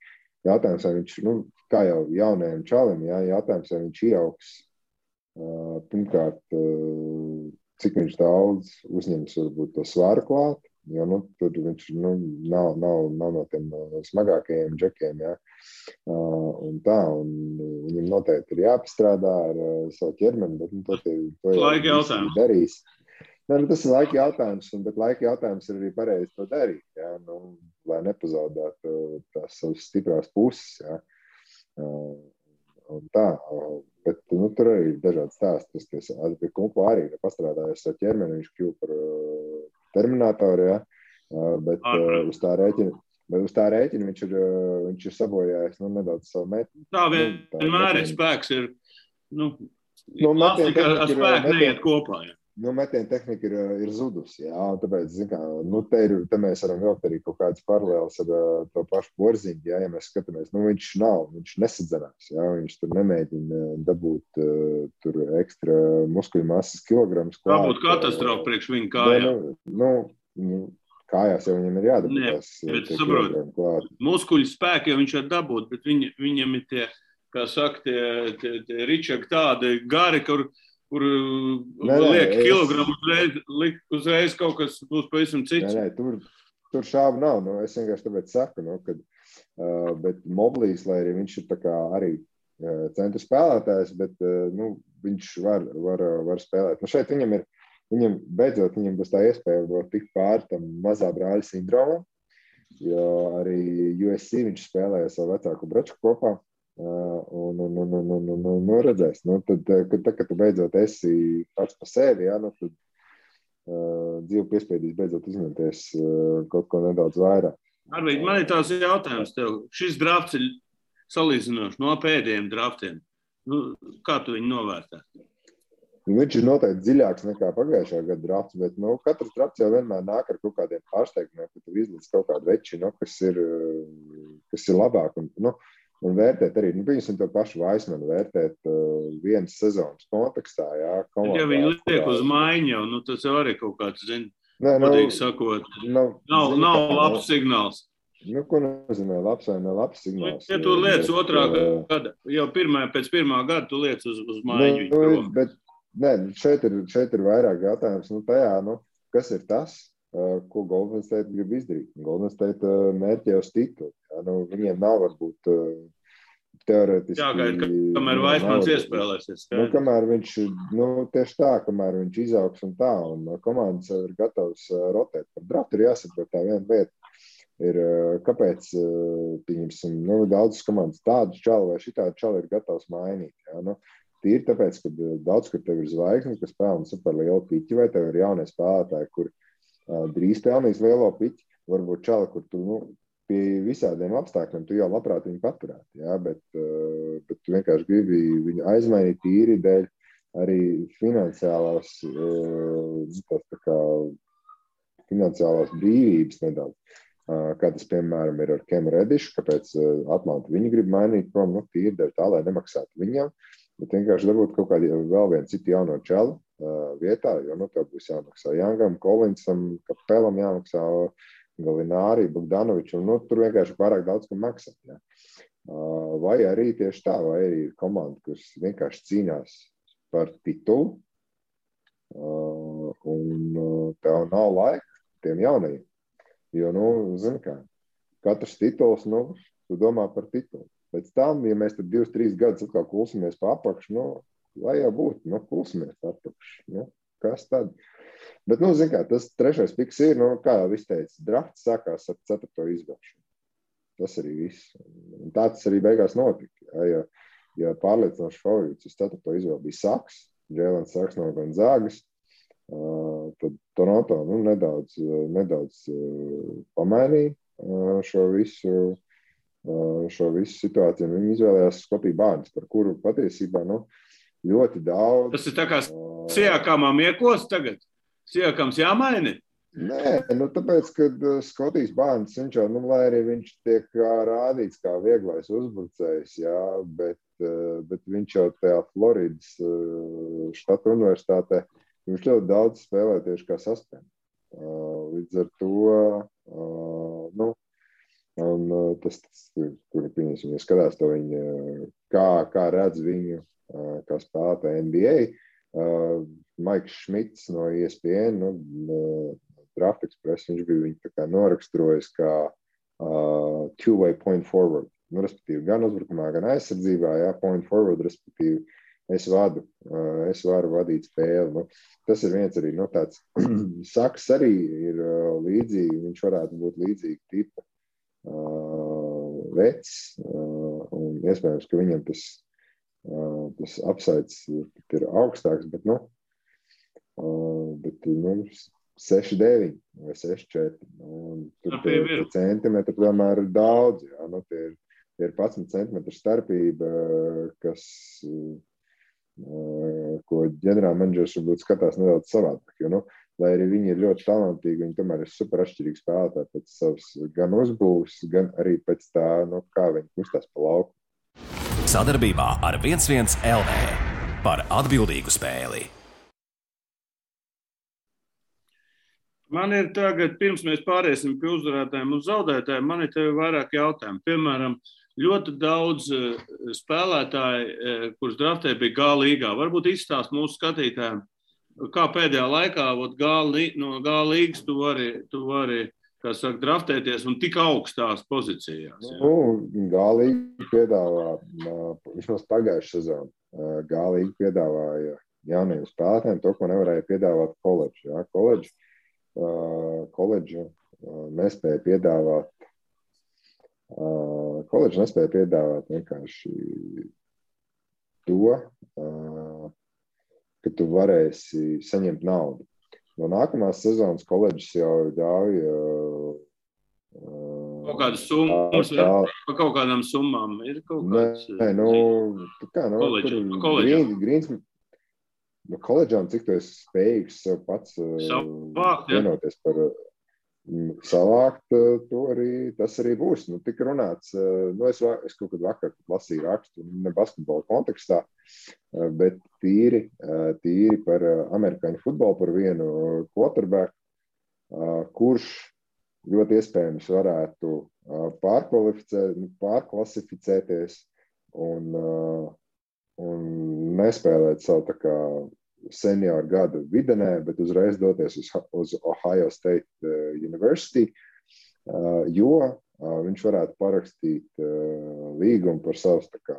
Jautājums, vai viņš, kā jau jaunajam čalim, jautājums, vai viņš ieaugs, pirmkārt, cik viņš daudz uzņems varbūt to svaru klāt, jo tur viņš nav no tiem smagākajiem džekiem, jā. Un viņam noteikti ir jāpastrādā ar savu ķermeni, bet to laika jautājums darīs. Tas ir laika jautājums, bet laika jautājums ir arī pareizi to darīt, jā, lai nepazaudētu tās savas stiprās puses, jā. Un tā, bet tur arī ir dažādi stāsti. Tas pie Kumpo arī pastrādājās savu ķermeni, viņš kļuva par Terminatoru, jā, bet uz tā rēķina viņš ir sabojājis nedaudz savu meti. Tā vienmēr ir spēks, ir, plastika ar spēku neiet kopā, jā. metiena tehnika ir zudusi, jā, un tāpēc, te mēs varam vilkt arī kaut kādas paralēlas ar to pašu Porziņu, jā, ja mēs skatāmies, viņš nesadzenās, jā, viņš tur nemēģina dabūt tur ekstra muskuļu masas kilogramus. Tā būtu katastrofa priekš viņa kājām. Kājās jau viņam ir jādabūt tās kilogramu klāt. Muskuļu spēki jau viņš var dabūt, bet viņam ir tie, kā saka, tie ričaki tādi gari, kur liek kilogramu uzreiz kaut kas būs pavisam cits. Tur šābu nav. Es vienkārši tāpēc saku, bet Moblīs, lai arī viņš ir tā kā arī centru spēlētājs, bet viņš var spēlēt. Šeit viņam beidzot būs tā iespēja tikt pāri tam mazā brāļa sindromam, jo arī USC viņš spēlēja savu vecāku braču kopā. Redzēs. Kad tu beidzot esi pats pa sevi, tad dzīve piespiedīs beidzot uzņemties kaut ko nedaudz vairāk. Arvīd, man ir tās jautājums tev. Šis drafts ir salīdzinoši no pēdējiem draftiem. Kā tu viņu novērtē? Viņš ir noteikti dziļāks nekā pagājušā gada drafts, bet katrs drafts jau vienmēr nāk ar kaut kādiem pārsteigumiem, ka tu izlīdz kaut kādu veči, kas ir labāk. Un vērtēt arī, piemēram, to pašu Vaismanu vērtēt vienas sezonas kontekstā, jā. Ja viņi liek uz maiņu jau, tas jau arī kaut kāds, godīgi sakot, nav labs signāls. Ko nozīmē labs vai ne labs signāls? Ja tu liec otrā gada, jau pēc pirmā gada tu liec uz maiņu. Šeit ir vairāk jautājums, kas ir tas, ko Golden State grib izdarīt. Golden State mērķi uz titulu. Viņiem nav varbūt teorētiski. Jāgaida, kamēr Vaismans iespēlēsies. Kamēr viņš, tieši tā, kamēr viņš izaugs un tā, un komandas ir gatavs rotēt. Par draftu ir jāsaprot tā viena lieta. Ir, kāpēc, pieņemsim, daudzas komandas tādu čalu vai šitādu čalu ir gatavs mainīt. Jā, tīri tāpēc, ka daudz, kur tev ir zvaigznes, kas pelna super lielu piķi, vai tev ir jaunie spēlētāji, kur drīz pelnīs lielo piķi, varbūt čali, kur tu, pie visādiem apstākļiem tu jau labprāt viņu paturētu, jā, bet tu vienkārši gribi viņu aizmainīt tīri dēļ arī finansiālās brīvības nedaudz. Kā tas, piemēram, ir ar Kemu Redišu, kāpēc Atlanta viņu grib mainīt prom, tīri dēļ tā, lai nemaksātu viņam, bet vienkārši dabūt kaut kādu vēl vienu citu jauno čalu vietā, jo tev būs jāmaksā Jangam, Kolinsam, Kapelam jāmaksā, Galinārī, Bogdanovičam, tur vienkārši pārāk daudz, kam maksāt. Ja. Vai arī tieši tā, vai arī ir komanda, kas vienkārši cīnās par titulu, un tev nav laika tiem jaunajiem. Jo, zini kā, katrs tituls, tu domā par titulu. Pēc tam, ja mēs tad 2-3 gadus atkal kulsimies pa apakšu, lai jau būtu, kulsimies pa apakšu. Kas tad? Bet, zini kā, tas trešais piks ir, kā jau viss teica, drafts sākās ar 4. izvēlšanu. Tas arī viss. Un tā tas arī beigās notika. Ja pārliecinoši favorīts uz 4. izvēli bija Saks, Jēlens Saks no Gonzagas, tad Toronto nedaudz pamainīja šo visu situāciju. Viņi izvēlējās Skotiju Bārns, par kuru patiesībā ļoti daudz. Tas ir tā kā Siakamam iekos tagad? Siakams jāmaini? Nē, tāpēc, kad Skotijs Bārns, viņš jau, lai arī viņš tiek rādīts kā vieglais uzbrucējs, jā, bet viņš jau tajā Floridas štata universitātē, viņš ļoti daudz spēlē tieši kā saspēm. Līdz ar to, un tas kur pieņemsim, ja skatās to viņu, kā redz viņu, kā spēlētāju NBA, Maiks Šmits no ESPN, Draft Express, viņš bija viņu tā kā noraksturojis kā two-way point forward. Respektīvi, gan uzbrukumā, gan aizsardzībā, jā, point forward, respektīvi, es varu vadīt spēli. Tas ir viens arī, tāds Saks arī ir līdzīgi, viņš varētu būt līdzīgi tipa vecs, un iespējams, ka viņam tas upsides ir augstāks, bet 6-9 vai 6-4. Tur tie centimetri tomēr ir daudz. Jā, tie ir 11 centimetru starpība, kas ko ģenerālmenedžers varbūt skatās nedaudz savādāk. Jo, lai arī viņi ir ļoti talantīgi, viņi tomēr ir super atšķirīgi spēlētāji pēc savas gan uzbūves, gan arī pēc tā, kā viņi kustās pa lauku. Sadarbībā ar 11 LV par atbildīgu spēli. Man ir tagad, pirms mēs pāriesim pie uzvarētājiem un zaudētājiem, man ir tev vairāk jautājumu. Piemēram, ļoti daudz spēlētāji, kurus draftē bija G līgā. Varbūt izstāst mūsu skatītājiem, kā pēdējā laikā no G līgas tu vari kā saka, draftēties un tik augstās pozīcijās. G līga piedāvā, vismaz pagājušā sezona, G līga piedāvāja jauniem spēlētājiem to, ko nevarēja piedāvāt koledži. Ja? Koledži nespēja piedāvāt vienkārši to, ka tu varēsi saņemt naudu. No nākamās sezonas koledžas jau ļauj kaut kādas summas, par kaut kādām summām ir kaut kāds... Koledžām, cik tu esi spējīgs sev pats vienoties par savākt, tas arī būs. Tik runāts, es kaut kad vakar lasīju rakstu, ne basketbola kontekstā, bet tīri par amerikāņu futbolu, par vienu quarterback, kurš ļoti iespējams varētu pārklasificēties un nespēlēt savu tā kā senioru gadu videnē, bet uzreiz doties uz Ohio State University, jo viņš varētu parakstīt līgumu par savus tā kā,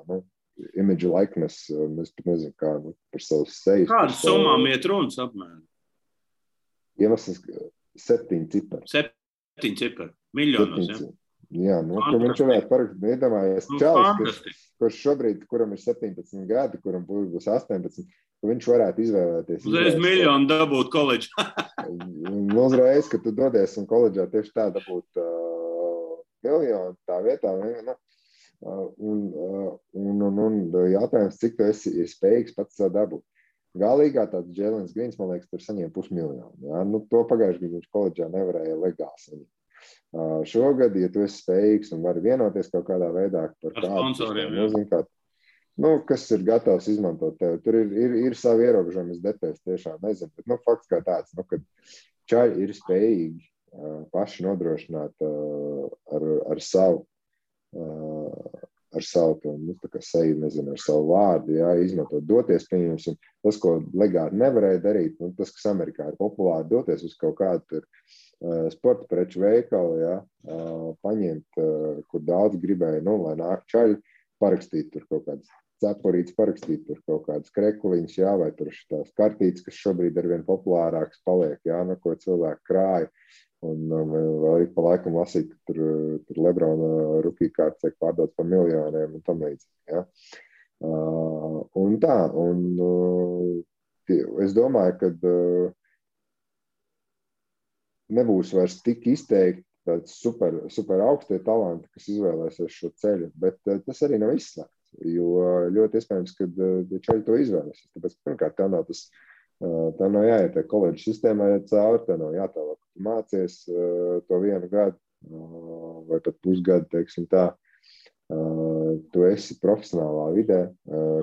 image likeness, es pat nezinu kā, par savus sejas. Kādas summām iet runas apmēram? Iemesls 7 cipari. 7 cipari, miljonos, ja? Jā, ka viņš varētu parakstīt, iedomājies čalis, kurš šobrīd, kuram ir 17 gadi, kuram būs 18, ka viņš varētu izvēlēties. Uzreiz miljonu dabūt koledžā. Uzreiz, ka tu dodies un koledžā tieši tā dabūt miljonu tā vietā. Un jātājums, cik tu esi spējīgs pats savu dabūt. Galīgā tāds Jēlens Grīns, man liekas, tur saņēma $500,000. Ja? To pagājuši gadu viņš koledžā nevarēja legāli saņemt. Šogad, ja tu esi spējīgs un vari vienoties kaut kādā veidā par kādu, kas ir gatavs izmantot tevi. Tur ir savi ierobežojumi, es detēs tiešām nezinu, bet fakts kā tāds, kad čaļi ir spējīgi paši nodrošināt ar savu tā kā seju, nezinu, ar savu vārdu, jā, izmantot, doties, pieņemsim, tas, ko legāli nevarēja darīt, tas, kas Amerikā ir populāri, doties uz kaut kādu tur sporta preču veikalu, jā, paņemt, kur daudz gribēja, lai nāk čaļi, parakstīt tur kaut kādas cepurītes, parakstīt tur kaut kādas krekliņas, jā, vai tur tās kartītes, kas šobrīd arvien populārākas paliek, jā, ko cilvēki krāja, un vēl ik pa laikam lasīt, ka tur Lebrona rookie kārtas tiek pārdots par miljoniem un tam līdzīgi, jā. Un tā, es domāju, ka nebūs vairs tik izteikti tāds super augstie talanti, kas izvēlēsies šo ceļu, bet tas arī nav izslēgts, jo ļoti iespējams, ka čaļi to izvēlēsies. Tāpēc, pirmkārt, tā nav jāiet koledžas sistēmā cauri, tā nav jātālāk, ka tu mācies to vienu gadu vai pat pusgadu, teiksim tā, tu esi profesionālā vidē.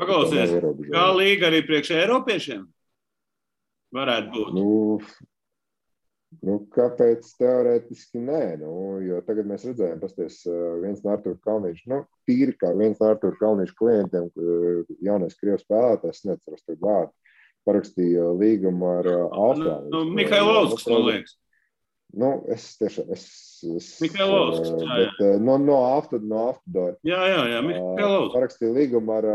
Paklausies, kā līga arī priekš eiropiešiem varētu būt? Kāpēc teorētiski nē? Jo tagad mēs redzējām, pasties viens no Artūra Kalniņša, tīri kā viens no Artūra Kalniņša klientiem, jaunais krievs spēlētājs, neceros tagad vārdu, parakstīja līgumu ar Austrāliju. Mihailovskis, man liekas. Es tiešām, Mihailovskis, bet no Aftodora. Jā, Mihailovskis. Parakstīja līgumu ar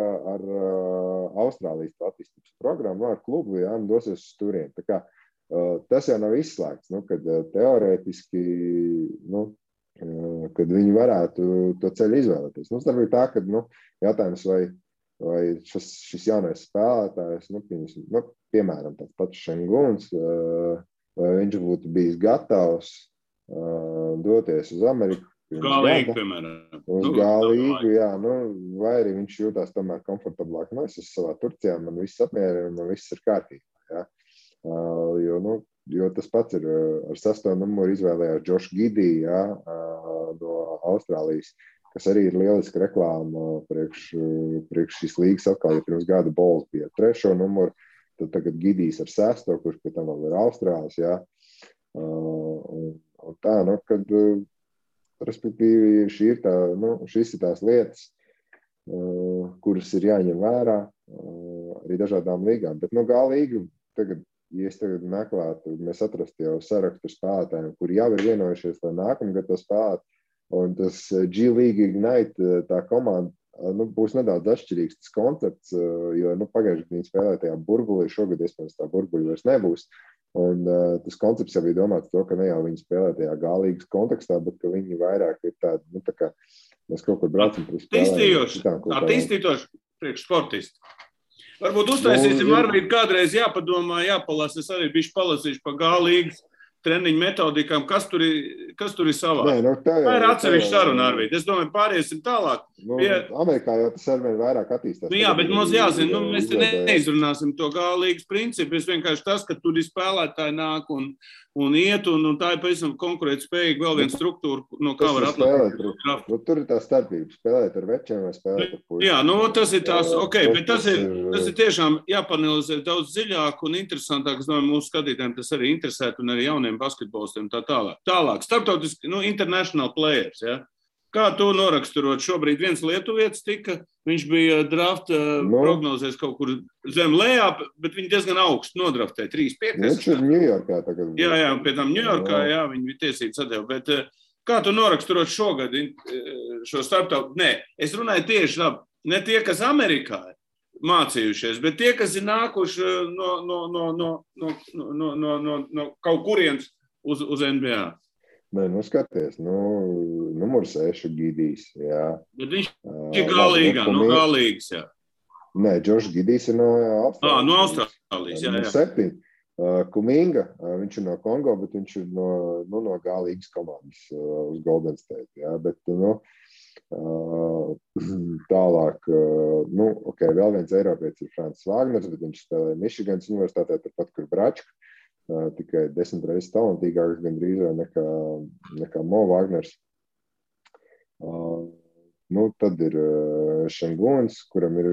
Austrālijas attīstības programmu, ar klubu, jā, un dosies uz turieni. Tā kā tas jau nav izslēgts, kad teorētiski, kad viņi varētu to ceļu izvēlēties. Starp tā, ka jautājums, vai šis jaunais spēlētājs, piemēram, tāds pats Šenguns, vai viņš būtu bijis gatavs doties uz Ameriku. Kā līga, piemēram. Uz G-līgu, jā, vai arī viņš jūtās tomēr komfortablāk. Es esmu savā Turcijā, man viss apmierina, man viss ir kārtībā. Ja? Jo tas pats ir ar 6. numuru izvēlējās Josh Giddey, ja? No Austrālijas, kas arī ir lieliska reklāma priekš šīs līgas atkal, ja pirms gada Bulls bija 3. numuru, tad tagad Giddijs ar 6, kurš pie tam vēl ir Austrālis, ja? Un tā, kad respektīvi šīs ir tās lietas, kuras ir jāņem vērā arī dažādām līgām. Bet G-līga, ja es tagad meklētu, mēs atrastu jau sarakstu spēlētājiem, kuri jau ir vienojušies, lai nākamgad to spēlēt, un tas G-League Ignite, tā komanda, būs nedaudz atšķirīgs tas koncepts, jo pagājuši viņi spēlē tajā burbulī, šogad iespējams tā burbuļi vairs nebūs. Un tas koncepts jau bija domāts to, ka ne jau viņi spēlē tajā G-līgas kontekstā, bet ka viņi vairāk ir tādi, tā kā mēs kaut kur braucam par spēlēm. Attīstītoši priekš sportisti. Varbūt uztaisīsim Arvīdu kādreiz jāpadomā, jāpalasa. Es arī bišķi palasīšu pa G-līgas treniņu metodikām, kas tur ir savā. Tā ir atsevišķa saruna, Arvīd. Es domāju, pāriesim tālāk. Amerikā jau tas arvien vairāk attīstās. Jā, bet mums jāzina, mēs te neizrunāsim to G-līgas principu. Es vienkārši tas, ka tur ir spēlētāji nāk un iet, un tā ir pavisam konkurētspējīga vēl viena struktūra, no kā var atlaist. Tur ir tā starpība, spēlēt ar večiem vai spēlēt ar puišiem. Jā, tas ir tās, bet tas ir tiešām jāpanalizē daudz dziļāk un interesantāk. Es domāju, mūsu skatītājiem tas arī interesētu un arī jauniem basketbolistiem tā tālāk. Tālāk, starptautiski, international players, ja? Kā tu noraksturot? Šobrīd viens lietuvietis tika, viņš bija draft prognozēs kaut kur zem lejā, bet viņi diezgan augstu nodraftēja, 3-5. Viņš ir Ņujorkā tagad. Jā, pie tam Ņujorkā, jā, viņi bija tiesības atdeva, bet kā tu noraksturot šogad šo starptautu? Nē, es runāju tieši tā, ne tie, kas Amerikā mācījušies, bet tie, kas ir nākuši no kaut kurienes uz NBA. Nē, skaties, numur 6 Giddijs, jā. Bet viņš ir G-līgā, no G-līgas, jā. Nē, Josh Giddijs ir no Austrālijas. No Austrālijas, jā. Numur 7. Kuminga, viņš ir no Kongo, bet viņš ir no G-līgas komandas uz Golden State, jā. Bet, tālāk, vēl viens eiropietis ir Francis Wagners, bet viņš spēlē Michiganas universitātē, turpat, kur Bračka. Tikai 10 reizes talantīgāks gandrīz nekā Mo Wagners. Tad ir Šenguns, kuram ir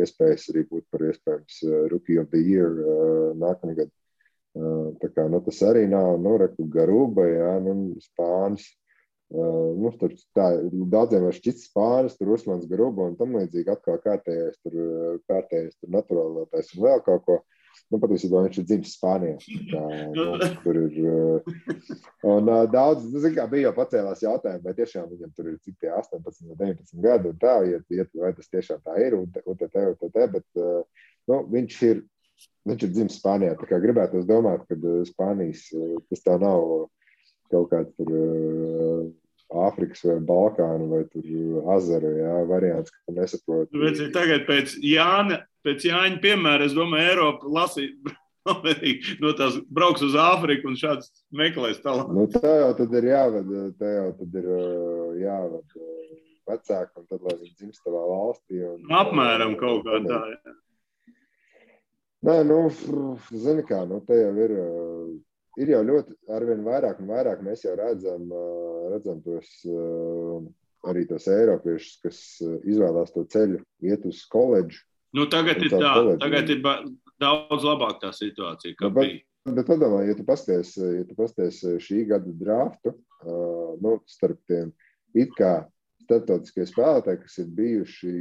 iespējas arī būt par iespējams Rookie of the Year nākamgad. Tā kā, tas arī nav, Garuba, jā, Spānis. Daudziem var šķits Spānis, tur Usmans Garuba un tam līdzīgi atkal kārtējais tur naturālātais un vēl kaut ko. Patiesībā viņš ir dzimis Spānijā. Tur ir. Un daudz, bija jau pacēlās jautājumi, vai tiešām viņam tur ir cik tie 18 vai 19 gadi un tā, vai tas tiešām tā ir, bet viņš ir dzimis Spānijā. Tā kā gribētos domāt, ka Spānijas tas tā nav kaut kāds tur Āfrikas vai Balkānu vai tur Azaru, jā, variants, ka tu nesaproti. Tagad pēc Jāņa piemēra, es domāju, Eiropa lasīja no tās brauks uz Āfriku un šāds meklēs tālāk. Tā jau tad ir jāved vecāki un tad, lai viņi dzimst tavā valstī. Apmēram kaut kā tā, jā. Nē, zini kā, te jau ir jau ļoti arvien vairāk un vairāk mēs jau redzam tos, arī tos eiropiešus, kas izvēlās to ceļu, iet uz koledžu. Tagad ir tā, tagad ir daudz labāk tā situācija, kā bija. Bet padomā, ja tu pasties šī gada draftu, starp tiem it kā starptautiskie spēlētāji, kas ir bijuši,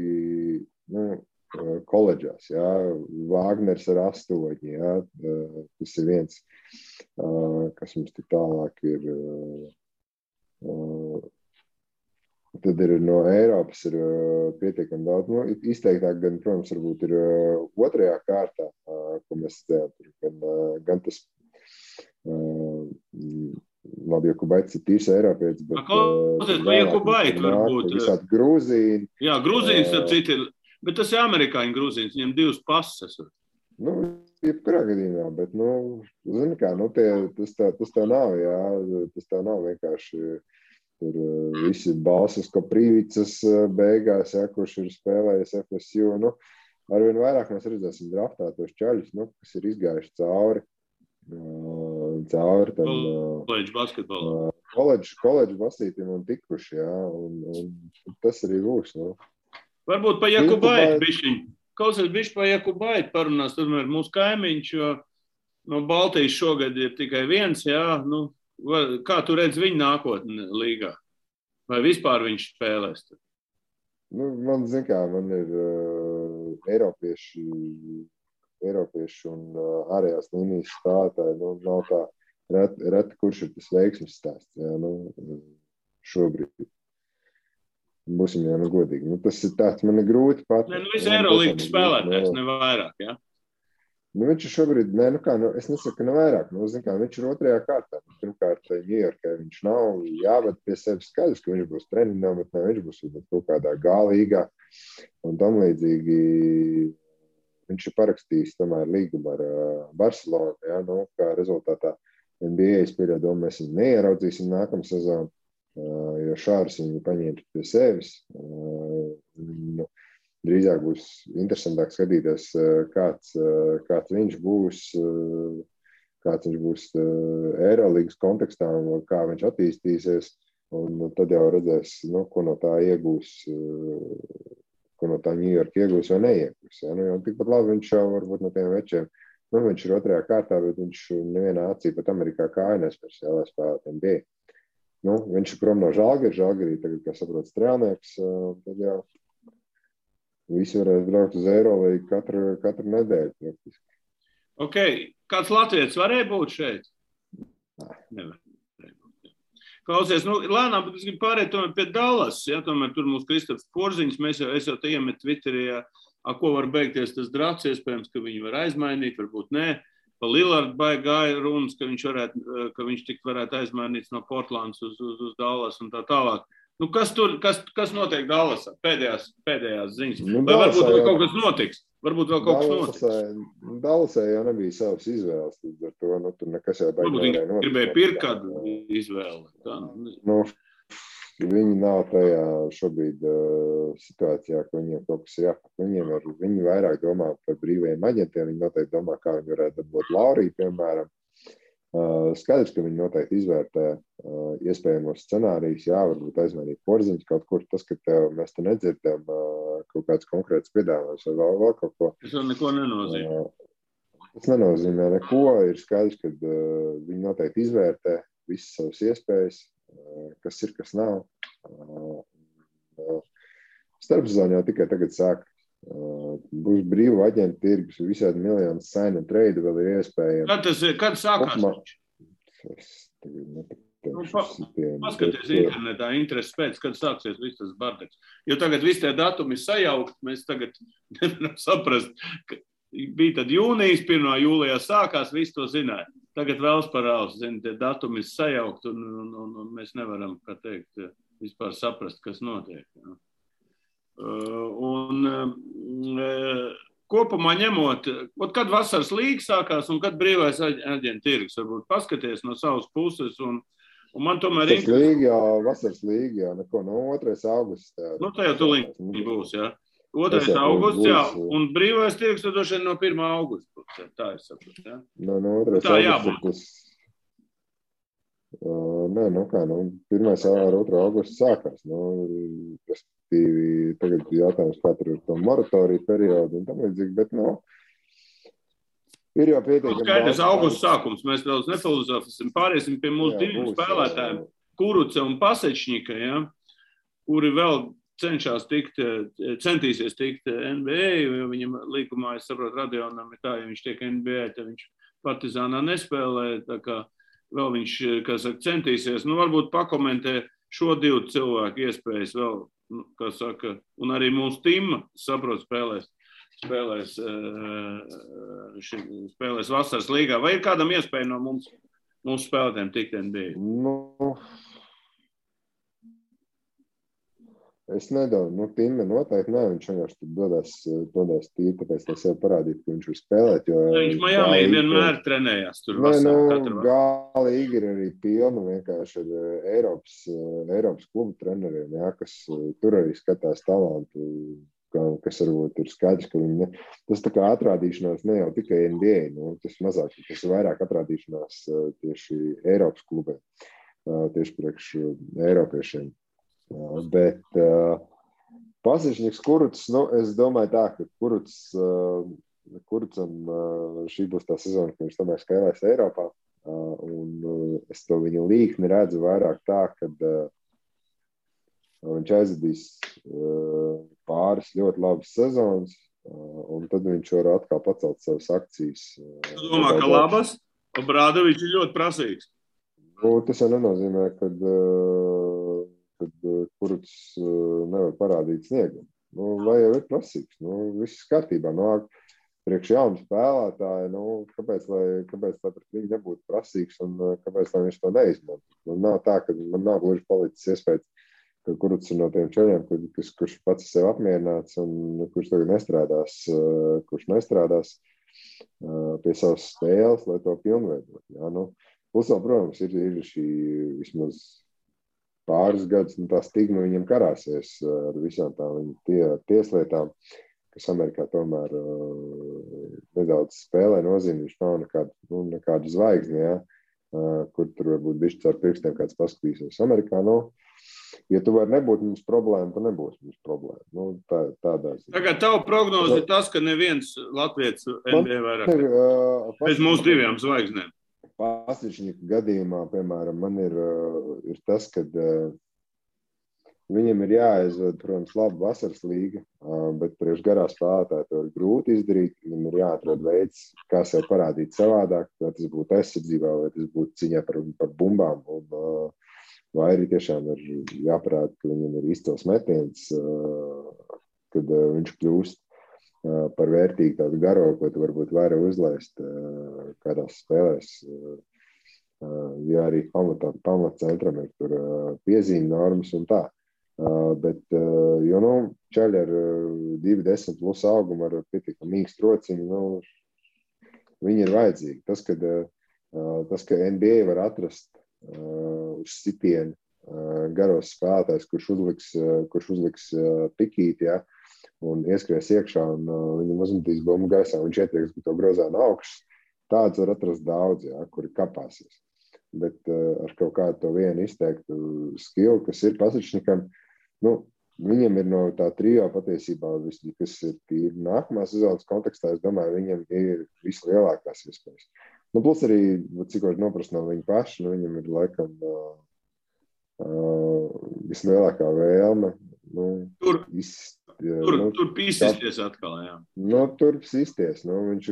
koledžās, jā, Wagners ar 8, jā, tas ir viens, kas mums tik tālāk ir, tad ir no Eiropas ir pietiekami daudz, izteiktāk gan, protams, varbūt ir 2. kārtā, ko mēs redzējām, gan tas, labi, Jakubaits ir tīrs Eiropietis, bet Jakubaits varbūt. Visādi Grūzīni. Jā, Grūzīns ar citi ir. Bet tas ir amerikāņu Grūzīns, viņam 2 pases. Jebkurā gadījumā, bet, zini kā, tas tev nav, jā, tas tev nav vienkārši tur visi balsas, ko Prīvicas beigās, ja, kurš ir spēlējis FSU. Nu, arvien vairāk mēs redzēsim draftā tos čaļus, nu, kas ir izgājuši cauri tam koledžu basketbolam. Koledžu basītim un tikuši, jā, un tas arī būs, nu. Varbūt pa Jakubaitu bišķiņ. Klausies bišķi pa Jakubaitu parunās, tomēr mūsu kaimiņš, jo no Baltijas šogad ir tikai viens, jā, nu, kā tu redz viņu nākotni līgā? Vai vispār viņš spēlēs? Nu, man ir Eiropieši un ārējās līnijas spēlētāji, nu, nav tā reti, kurš ir tas veiksmes stāsts, jā, nu, šobrīd. Būsim jau godīgi. Nu, tas ir tāds, man ir grūti pat. Nu, visi Eirolīgas spēlētājs, ne vairāk, jā? Nu, viņš ir šobrīd, es nesaku, ka ne vairāk. Nu, viņš ir otrajā kārtā. Pirmkārt, Ņujorkai viņš nav jāved pie sevis skaidrs, ka viņš būs treniņā, bet ne, viņš būs kaut kādā G-līgā. Un tam līdzīgi viņš ir parakstījis tomēr līgumu ar Barcelonu, jā, nu, kā rezultātā NBA spēļā mēs viņu neieraudzīsim nākamā sezonu, jo Šārs viņu paņēma pie sevis. Nu, drīzāk būs interesantāk skatīties, kāds viņš būs Eirolīgas kontekstā un kā viņš attīstīsies. Un tad jau redzēs, nu, ko no tā iegūs, ko no tā Ņujorka iegūs vai neiegūs. Ja? Nu, tikpat labi viņš jau varbūt no tiem večiem, nu, viņš ir otrajā kārtā, bet viņš nevienā acī pat Amerikā kāja nespērs, lai spēlēt NBA. Nu, viņš ir prom no Žalgirī tagad, kā saprot, strēlnieks, tad jau visi varēs braukt uz Eirolīgu katru nedēļu praktiski. Ok, kāds latvietis varēja būt šeit? Nevar. Klausies, nu, lēnām, bet es gribu pārēt tomēr pie Dallas, ja, tomēr tur mūsu Kristofs Porziņš, es jau te iemet Twitterī, ko var beigties tas drafts, iespējams, ka viņi var aizmainīt, varbūt nē. Pa Lillardu gāja runas, ka viņš tik varētu aizmainīts no Portlands uz Dallas un tā tālāk. Nu, kas notiek Dallasā? Pēdējās ziņas. Nu, vai varbūt vēl kaut kas notiks? Varbūt vēl kaut kas notiks. Dallasā jau nebija savas izvēles. Ar to, nu, tur nekas jau baigi nevarēja notikt. Varbūt viņi gribēja pirkt kādu izvēli. Tā. Nu, viņi nav tajā šobrīd situācijā, ka viņiem kaut kas jāpat. Viņi vairāk domā par brīvajiem aģentiem. Viņi noteikti domā, kā viņi varētu dabūt Lauriju, piemēram. Skaidrs, ka viņi noteikti izvērtē iespējamos scenārijus, jā, varbūt aizmainīt Porziņus kaut kur, tas, ka mēs te nedzirdam kaut kāds konkrēts piedāvājums vai vēl kaut ko. Tas vēl neko nenozīmē. Tas nenozīmē neko, ir skaidrs, ka viņi noteikti izvērtē visas savas iespējas, kas ir, kas nav. Starpsezona jau tikai tagad sāk. Būs brīvu aģentu tirgus, visādi miljonu sign and trade vēl ir iespējams. Kad sākās? Paskaties internetā, interesi pēc, kad sāksies viss tas bardeks. Jo tagad visi tie datumi ir sajaukt, mēs tagad nevaram saprast, ka bija tad jūnijas, 1. jūlijā sākās, visi to zināja. Tagad vēls parāls, tie datumi ir sajaukt un mēs nevaram, kā teikt, vispār saprast, kas notiek. Jā. Kopumā ņemot, kad vasaras līga sākās un kad brīvais aģentu tirgus, varbūt paskaties no savas puses un man tomēr vasaras līga, jā, neko, no 2. augusts. Nu, tā jau tuliņ būs, jā. 2. augusts, jā, un brīvais tirgus tad došana no 1. augusta, tā es saprotu, jā. No 2. augusta. Nē, nu kā, 1. ar 2. augustu sākās. Respektīvi, tagad jautājums, kā tur ir to moratoriju periodu un tam līdzīgi, bet, ir jau pietiekami. Skaidrs, augusts sākums, mēs daudz nefilozofēsim, pāriesim pie mūsu diviem spēlētājiem, Kuruce un Pasečņika, ja, kuri vēl centīsies tikt NBA, jo viņam līgumā, es saprotu, Radionam ir tā, ja viņš tiek NBA, tad viņš Partizānā nespēlē, tā kā vēl viņš, kā saka, centīsies. Nu, varbūt pakomentē šo divu cilvēku iespējas vēl, kā saka, un arī mūsu tīma, saprot, spēlēs vasaras līgā. Vai ir kādam iespēja no mūsu spēlētājiem tikt NBA? Nu, Es nedaudz, Timme noteikti ne, viņš vienkārši tur dodās tīri, tāpēc lai sev parādītu, ka viņš var spēlēt, jo Viņš Miami vienmēr trenējās tur vasarā, katru vakaru. Galīgi ir arī pilna vienkārši ar Eiropas klubu treneriem, jā, kas tur arī skatās talantu, kas varbūt ir skaidrs, ka viņi tas tā kā atrādīšanās ne jau tikai NBA, tas mazāk, tas ir vairāk atrādīšanās tieši Eiropas klubiem, tieši priekš Eiropiešiem. Bet Pasišņiks Kurucs, es domāju tā, ka Kurucam šī būs tā sezona, ka viņš tomēr spēlēs Eiropā, un es to viņa līkni redzu vairāk tā, kad viņš aizvadīs pāris ļoti labas sezonas, un tad viņš var atkal pacelt savas akcijas. Tu domā, ka labas? Obrādovičs ir ļoti prasīgs. Tas jau nenozīmē, kad Kurucs nevar parādīt sniegumu. Vai jau ir prasīgs? Viss kārtībā. Priekš jaunu spēlētāju, kāpēc lai pret viņu nebūtu prasīgs un kāpēc lai viņš to neizmanto? Nav tā, ka man nav gluži palicis iespējas, ka Kurucs ir no tiem čeļiem, kurš pats sev apmierināts un kurš tagad nestrādās pie savas spēles, lai to pilnveidot. Plus vēl, protams, ir šī vismaz pāris gadus, tā stigma viņam karāsies ar visām tām tieslietām, kas Amerikā tomēr nedaudz spēlē nozīmi. Viņš nav nekāda zvaigzne, kur tur varbūt bišķi caur pirkstiem kāds paskatīsies. Amerikā, ja tu vari nebūt mums problēma, tad nebūs mums problēma. Tādā ziņā. Tagad tavu prognozi ir tas, ka neviens latvietis NBA vairāk bez mūsu divām zvaigznēm. Pasišņika gadījumā, piemēram, man ir tas, ka viņam ir jāaizved, protams, laba vasaras līga, bet priekš garā spēlētāji to ir grūti izdarīt. Viņam ir jāatrod veids, kā sev parādīt savādāk, vai tas būtu aizsardzībā, vai tas būtu ciņā par bumbām, vai arī tiešām ir jāparāda, ka viņam ir izcils metiens, kad viņš kļūst par vērtīgu tādu garo, ko tu varbūt vairāk uzlaist kādās spēlēs. Ja arī pamatcentram ir tur piezīme normas un tā. Bet, čaļi ar 2,10 plus augumu ar pietiekam mīkstu rociņu, viņi ir vajadzīgi. Tas, ka NBA var atrast uz sitienu garos spēlētājs, kurš uzliks pikīti, un ieskries iekšā, un viņam uzmetīs bumbu gaisā, un viņš ietrieks to grozā no augšas. Tāds var atrast daudz, kuri kapāsies. Bet ar kaut kādu to vienu izteiktu skilu, kas ir Pasišņikam, viņam ir no tā trio patiesībā, kas ir tīri nākamā sezonas kontekstā, es domāju, viņam ir vislielākās iespējas. Plus arī, cik var noprast no viņa paša, viņam ir laikam vislielākā vēlme. Tur pīsisties atkal, jā. Tur pīsisties. Viņš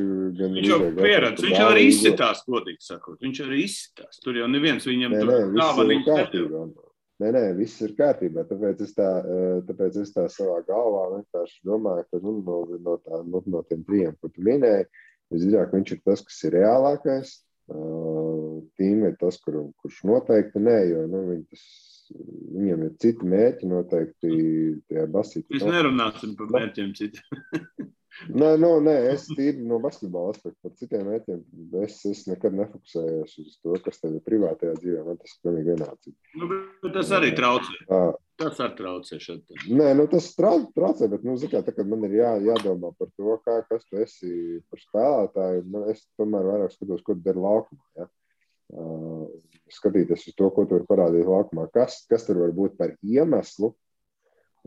jau pieredz, viņš arī izsitās, godīgi sakot. Viņš arī izsitās. Tur jau neviens viņam viss ir kārtībā. Nē, viss ir kārtībā. Tāpēc es tā savā galvā vienkārši domāju, ka no tiem trijiem, ko tu minēji, visdrīzāk viņš ir tas, kas ir reālākais. Tīm ir tas, kurš noteikti nē, jo viņam ir citi mērķi noteikti tajā basītā. Mēs nerunāsim par mērķiem citiem. Nē, es tīri no basketbola aspektu par citiem mērķiem. Es nekad nefokusējos uz to, kas tev ir privātajā dzīvē. Man tas ir pilnīgi vienāds. Bet tas arī traucē. Tas arī traucē šeit. Nē, tas traucē, bet, tā, kad man ir jādomā par to, kas tu esi par spēlētāju, es tomēr vairāk skatos, ko tu dari laukumā, skatīties uz to, ko tu vari parādīt laukumā, kas tur var būt par iemeslu,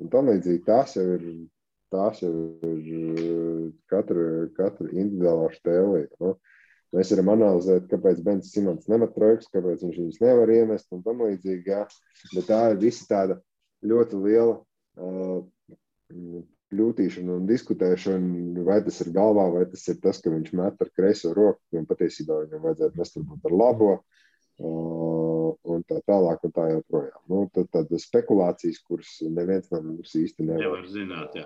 un tam līdzīgi tās jau ir katra individuālā štēlīga. Mēs varam analizēt, kāpēc Bens Simons nemet trojkas, kāpēc viņš viņus nevar iemest un tam līdzīgi, bet tā ir visa tāda ļoti liela kļūtīšana un diskutēšana, vai tas ir galvā, vai tas ir tas, ka viņš met ar kreiso roku, un patiesībā viņam vajadzētu mest varbūt ar labo, un tā tālāk un tā joprojām. Tad spekulācijas, kuras neviens no mums īsti nevar zināt,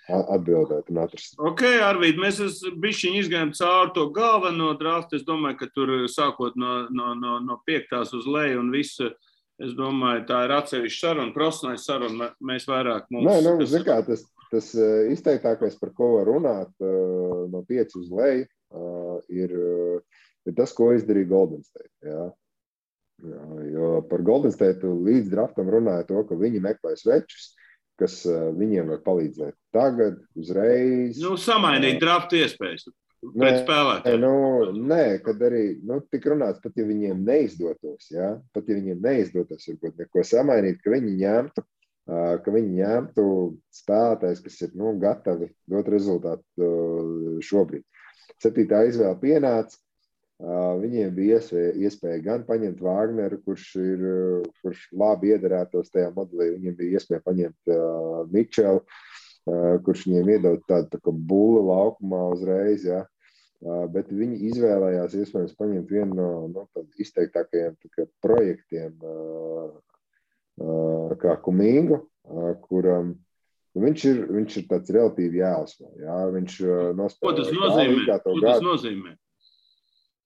atbildēt un atrast. Ok, Arvīd, mēs bišķiņ izgājām cauri to galveno draftu. Es domāju, ka tur sākot no 5. uz leju un visu Es domāju, tā ir atsevišķa saruna, profesionāla saruna. Mēs vairāk mums... Nē, zin kā, tas izteiktākais, par ko var runāt no 5 uz leju, ir tas, ko izdarīja Golden State. Jā. Jo par Golden State līdz draftam runāja to, ka viņi meklē svečus, kas viņiem var palīdzēt tagad, uzreiz. Samainīt draftu iespējas pret spēlētājiem. Nē, kad arī tik runāts, pat ja viņiem neizdotos, jā, varbūt neko samainīt, ka viņi ņemtu spēlētājs, kas ir gatavi dot rezultātu šobrīd. 7. izvēle pienāca, viņiem bija iespēja gan paņemt Vāgneru, kurš labi iederētos tajā modelī, viņiem bija iespēja paņemt Mičelu, kurš viņiem iedod tādu tā kā bulu laukumā uzreiz, ja. Bet viņi izvēlējās iespējams paņemt vienu no izteiktākajiem projektiem kā Kumingu, kuram viņš ir tāds relatīvi jāuzsver. Ja. Viņš Ko tas nozīmē?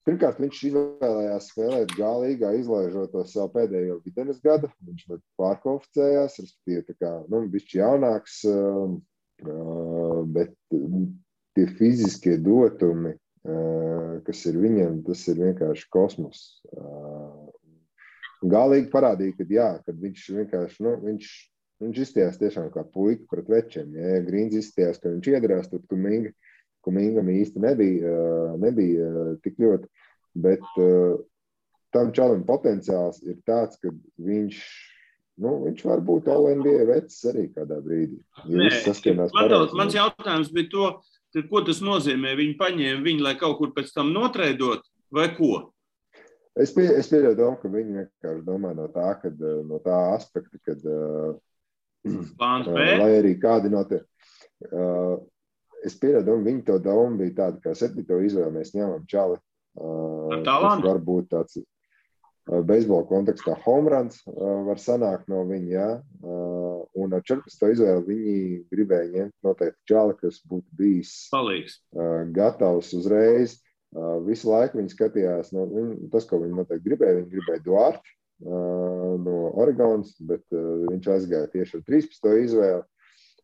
Pirmkārt, viņš izvēlējās spēlēt G-līgā, izlaižot to savu pēdējo videnes gadu. Viņš pārkvalificējās, respektīvi, bišķi jaunāks, bet tie fiziskie dotumi, kas ir viņam, tas ir vienkārši kosmos. G-līga parādīja, kad viņš vienkārši, viņš izstījās tiešām kā puika pret večiem. Ja Grīns izstījās, ka viņš iedarās, tad Kumingam īsti nebija tik ļoti, bet tam čalim potenciāls ir tāds, ka viņš var būt All-NBA vecs arī kādā brīdī. Mans jautājums bija to, ko tas nozīmē? Viņi paņēma viņu, lai kaut kur pēc tam notreidot, vai ko? Es pieļauju domu, ka viņi vienkārši domā no tā aspekta, kad lai arī kādi notiek. Es pieļauju domu, viņi to domu bija tāda, kā 7. izvēle mēs ņemam čali. Tas var būt tāds beisbola kontekstā home runs var sanākt no viņa, jā. Un ar 14. izvēli viņi gribēja ņemt noteikti čali, kas būtu bijis gatavs uzreiz. Visu laiku viņi skatījās, tas, ko viņi noteikti viņi gribēja Duarte no Oregonas, bet viņš aizgāja tieši ar 13. izvēli.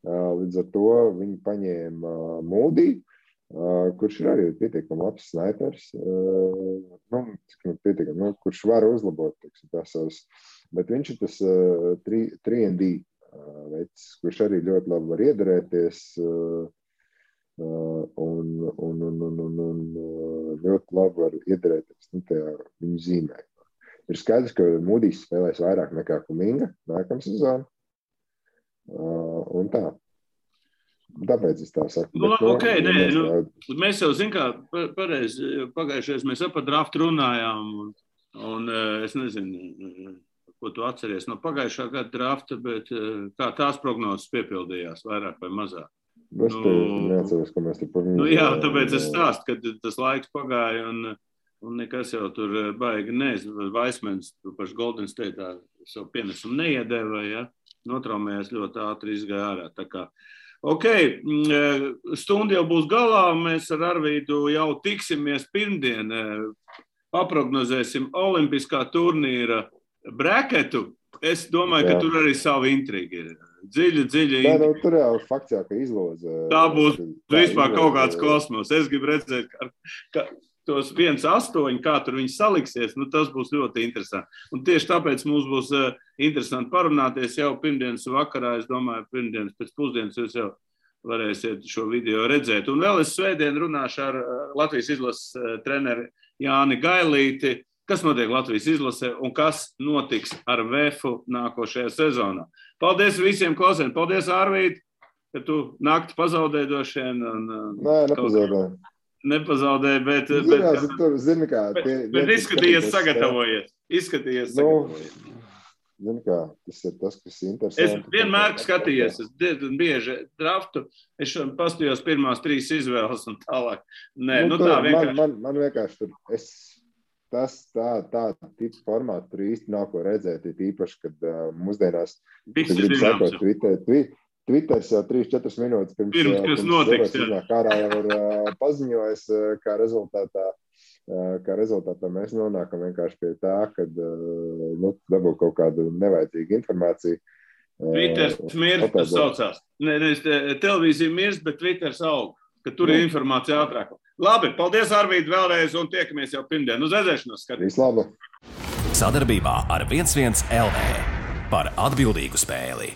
Līdz ar to viņi paņēma Moody, kurš ir arī pietiekami labs snaipers, kurš var uzlabot tās savas, bet viņš ir tas 3&D veids, kurš arī ļoti labi var iederēties un ļoti labi var iederēties tajā viņu zīmē. Ir skaidrs, ka Moodys spēlēs vairāk nekā Kuminga nākamā sezona. Un tā. Tāpēc es tā saku. Mēs jau pareizi pagājušais mēs par draftu runājām, un es nezinu, ko tu atceries no pagājušā gada drafta, bet kā tās prognozes piepildījās vairāk vai mazāk? Es neatceros, ka mēs te par viņu... Jā, tāpēc es stāstu, ka tas laiks pagāja, un nekas jau tur baigi Vaismens paši Golden State'ā savu pienesumu neiedēva, ja? Notraumējās ļoti ātri izgāja ārā. Tā kā, stunda jau būs galā, mēs ar Arvīdu jau tiksimies pirmdien, paprognozēsim olimpiskā turnīra braketu. Es domāju, ka tur arī savu intrigu ir. Dziļa intriga. Tur jau fakts jau, ka izloza. Tā būs vispār kaut kāds kosmos. Es gribu redzēt, ka tos 1-8, kā tur viņi saliksies, tas būs ļoti interesanti. Un tieši tāpēc mums būs interesanti parunāties jau pirmdienas vakarā. Es domāju, pirmdienas pēc pusdienas jūs jau varēsiet šo video redzēt. Un vēl es svētdien runāšu ar Latvijas izlases treneri Jāni Gailīti, kas notiek Latvijas izlasē un kas notiks ar VEFu nākošajā sezonā. Paldies visiem klausēm. Paldies, Ārvīd, ka tu nakti pazaudēji drošien. Nē, nepazaudēju. Nepazaudēja, bet izskatījies sagatavojies. Zini kā, tas ir tas, kas ir interesanti. Es vienmēr skatījies, es diezgan bieži draftu, es pastījos pirmās 3 izvēles un tālāk. Nē, tā vienkārši. Man vienkārši tur, tā tipa formāta tur īsti nav ko redzēt, īpaši, kad mūsdienās grib sakot Twitters jau 3-4 minūtes pirms kas notiks, ārā jau ir paziņojis, kā rezultātā kā rezultātā mēs nonākam vienkārši pie tā, kad dabū kaut kādu nevajadzīgu informāciju. Twitters mirst, tas saucās. Nevis televīzija mirst, bet Twitters aug, ka tur ir informācija ātrāk. Labi, paldies, Arvīd, vēlreiz, un tiekamies jau pirmdien. Uz redzēšanos, skatīt. Vislabāk! Sadarbībā ar 11 LV par atbildīgu spēli.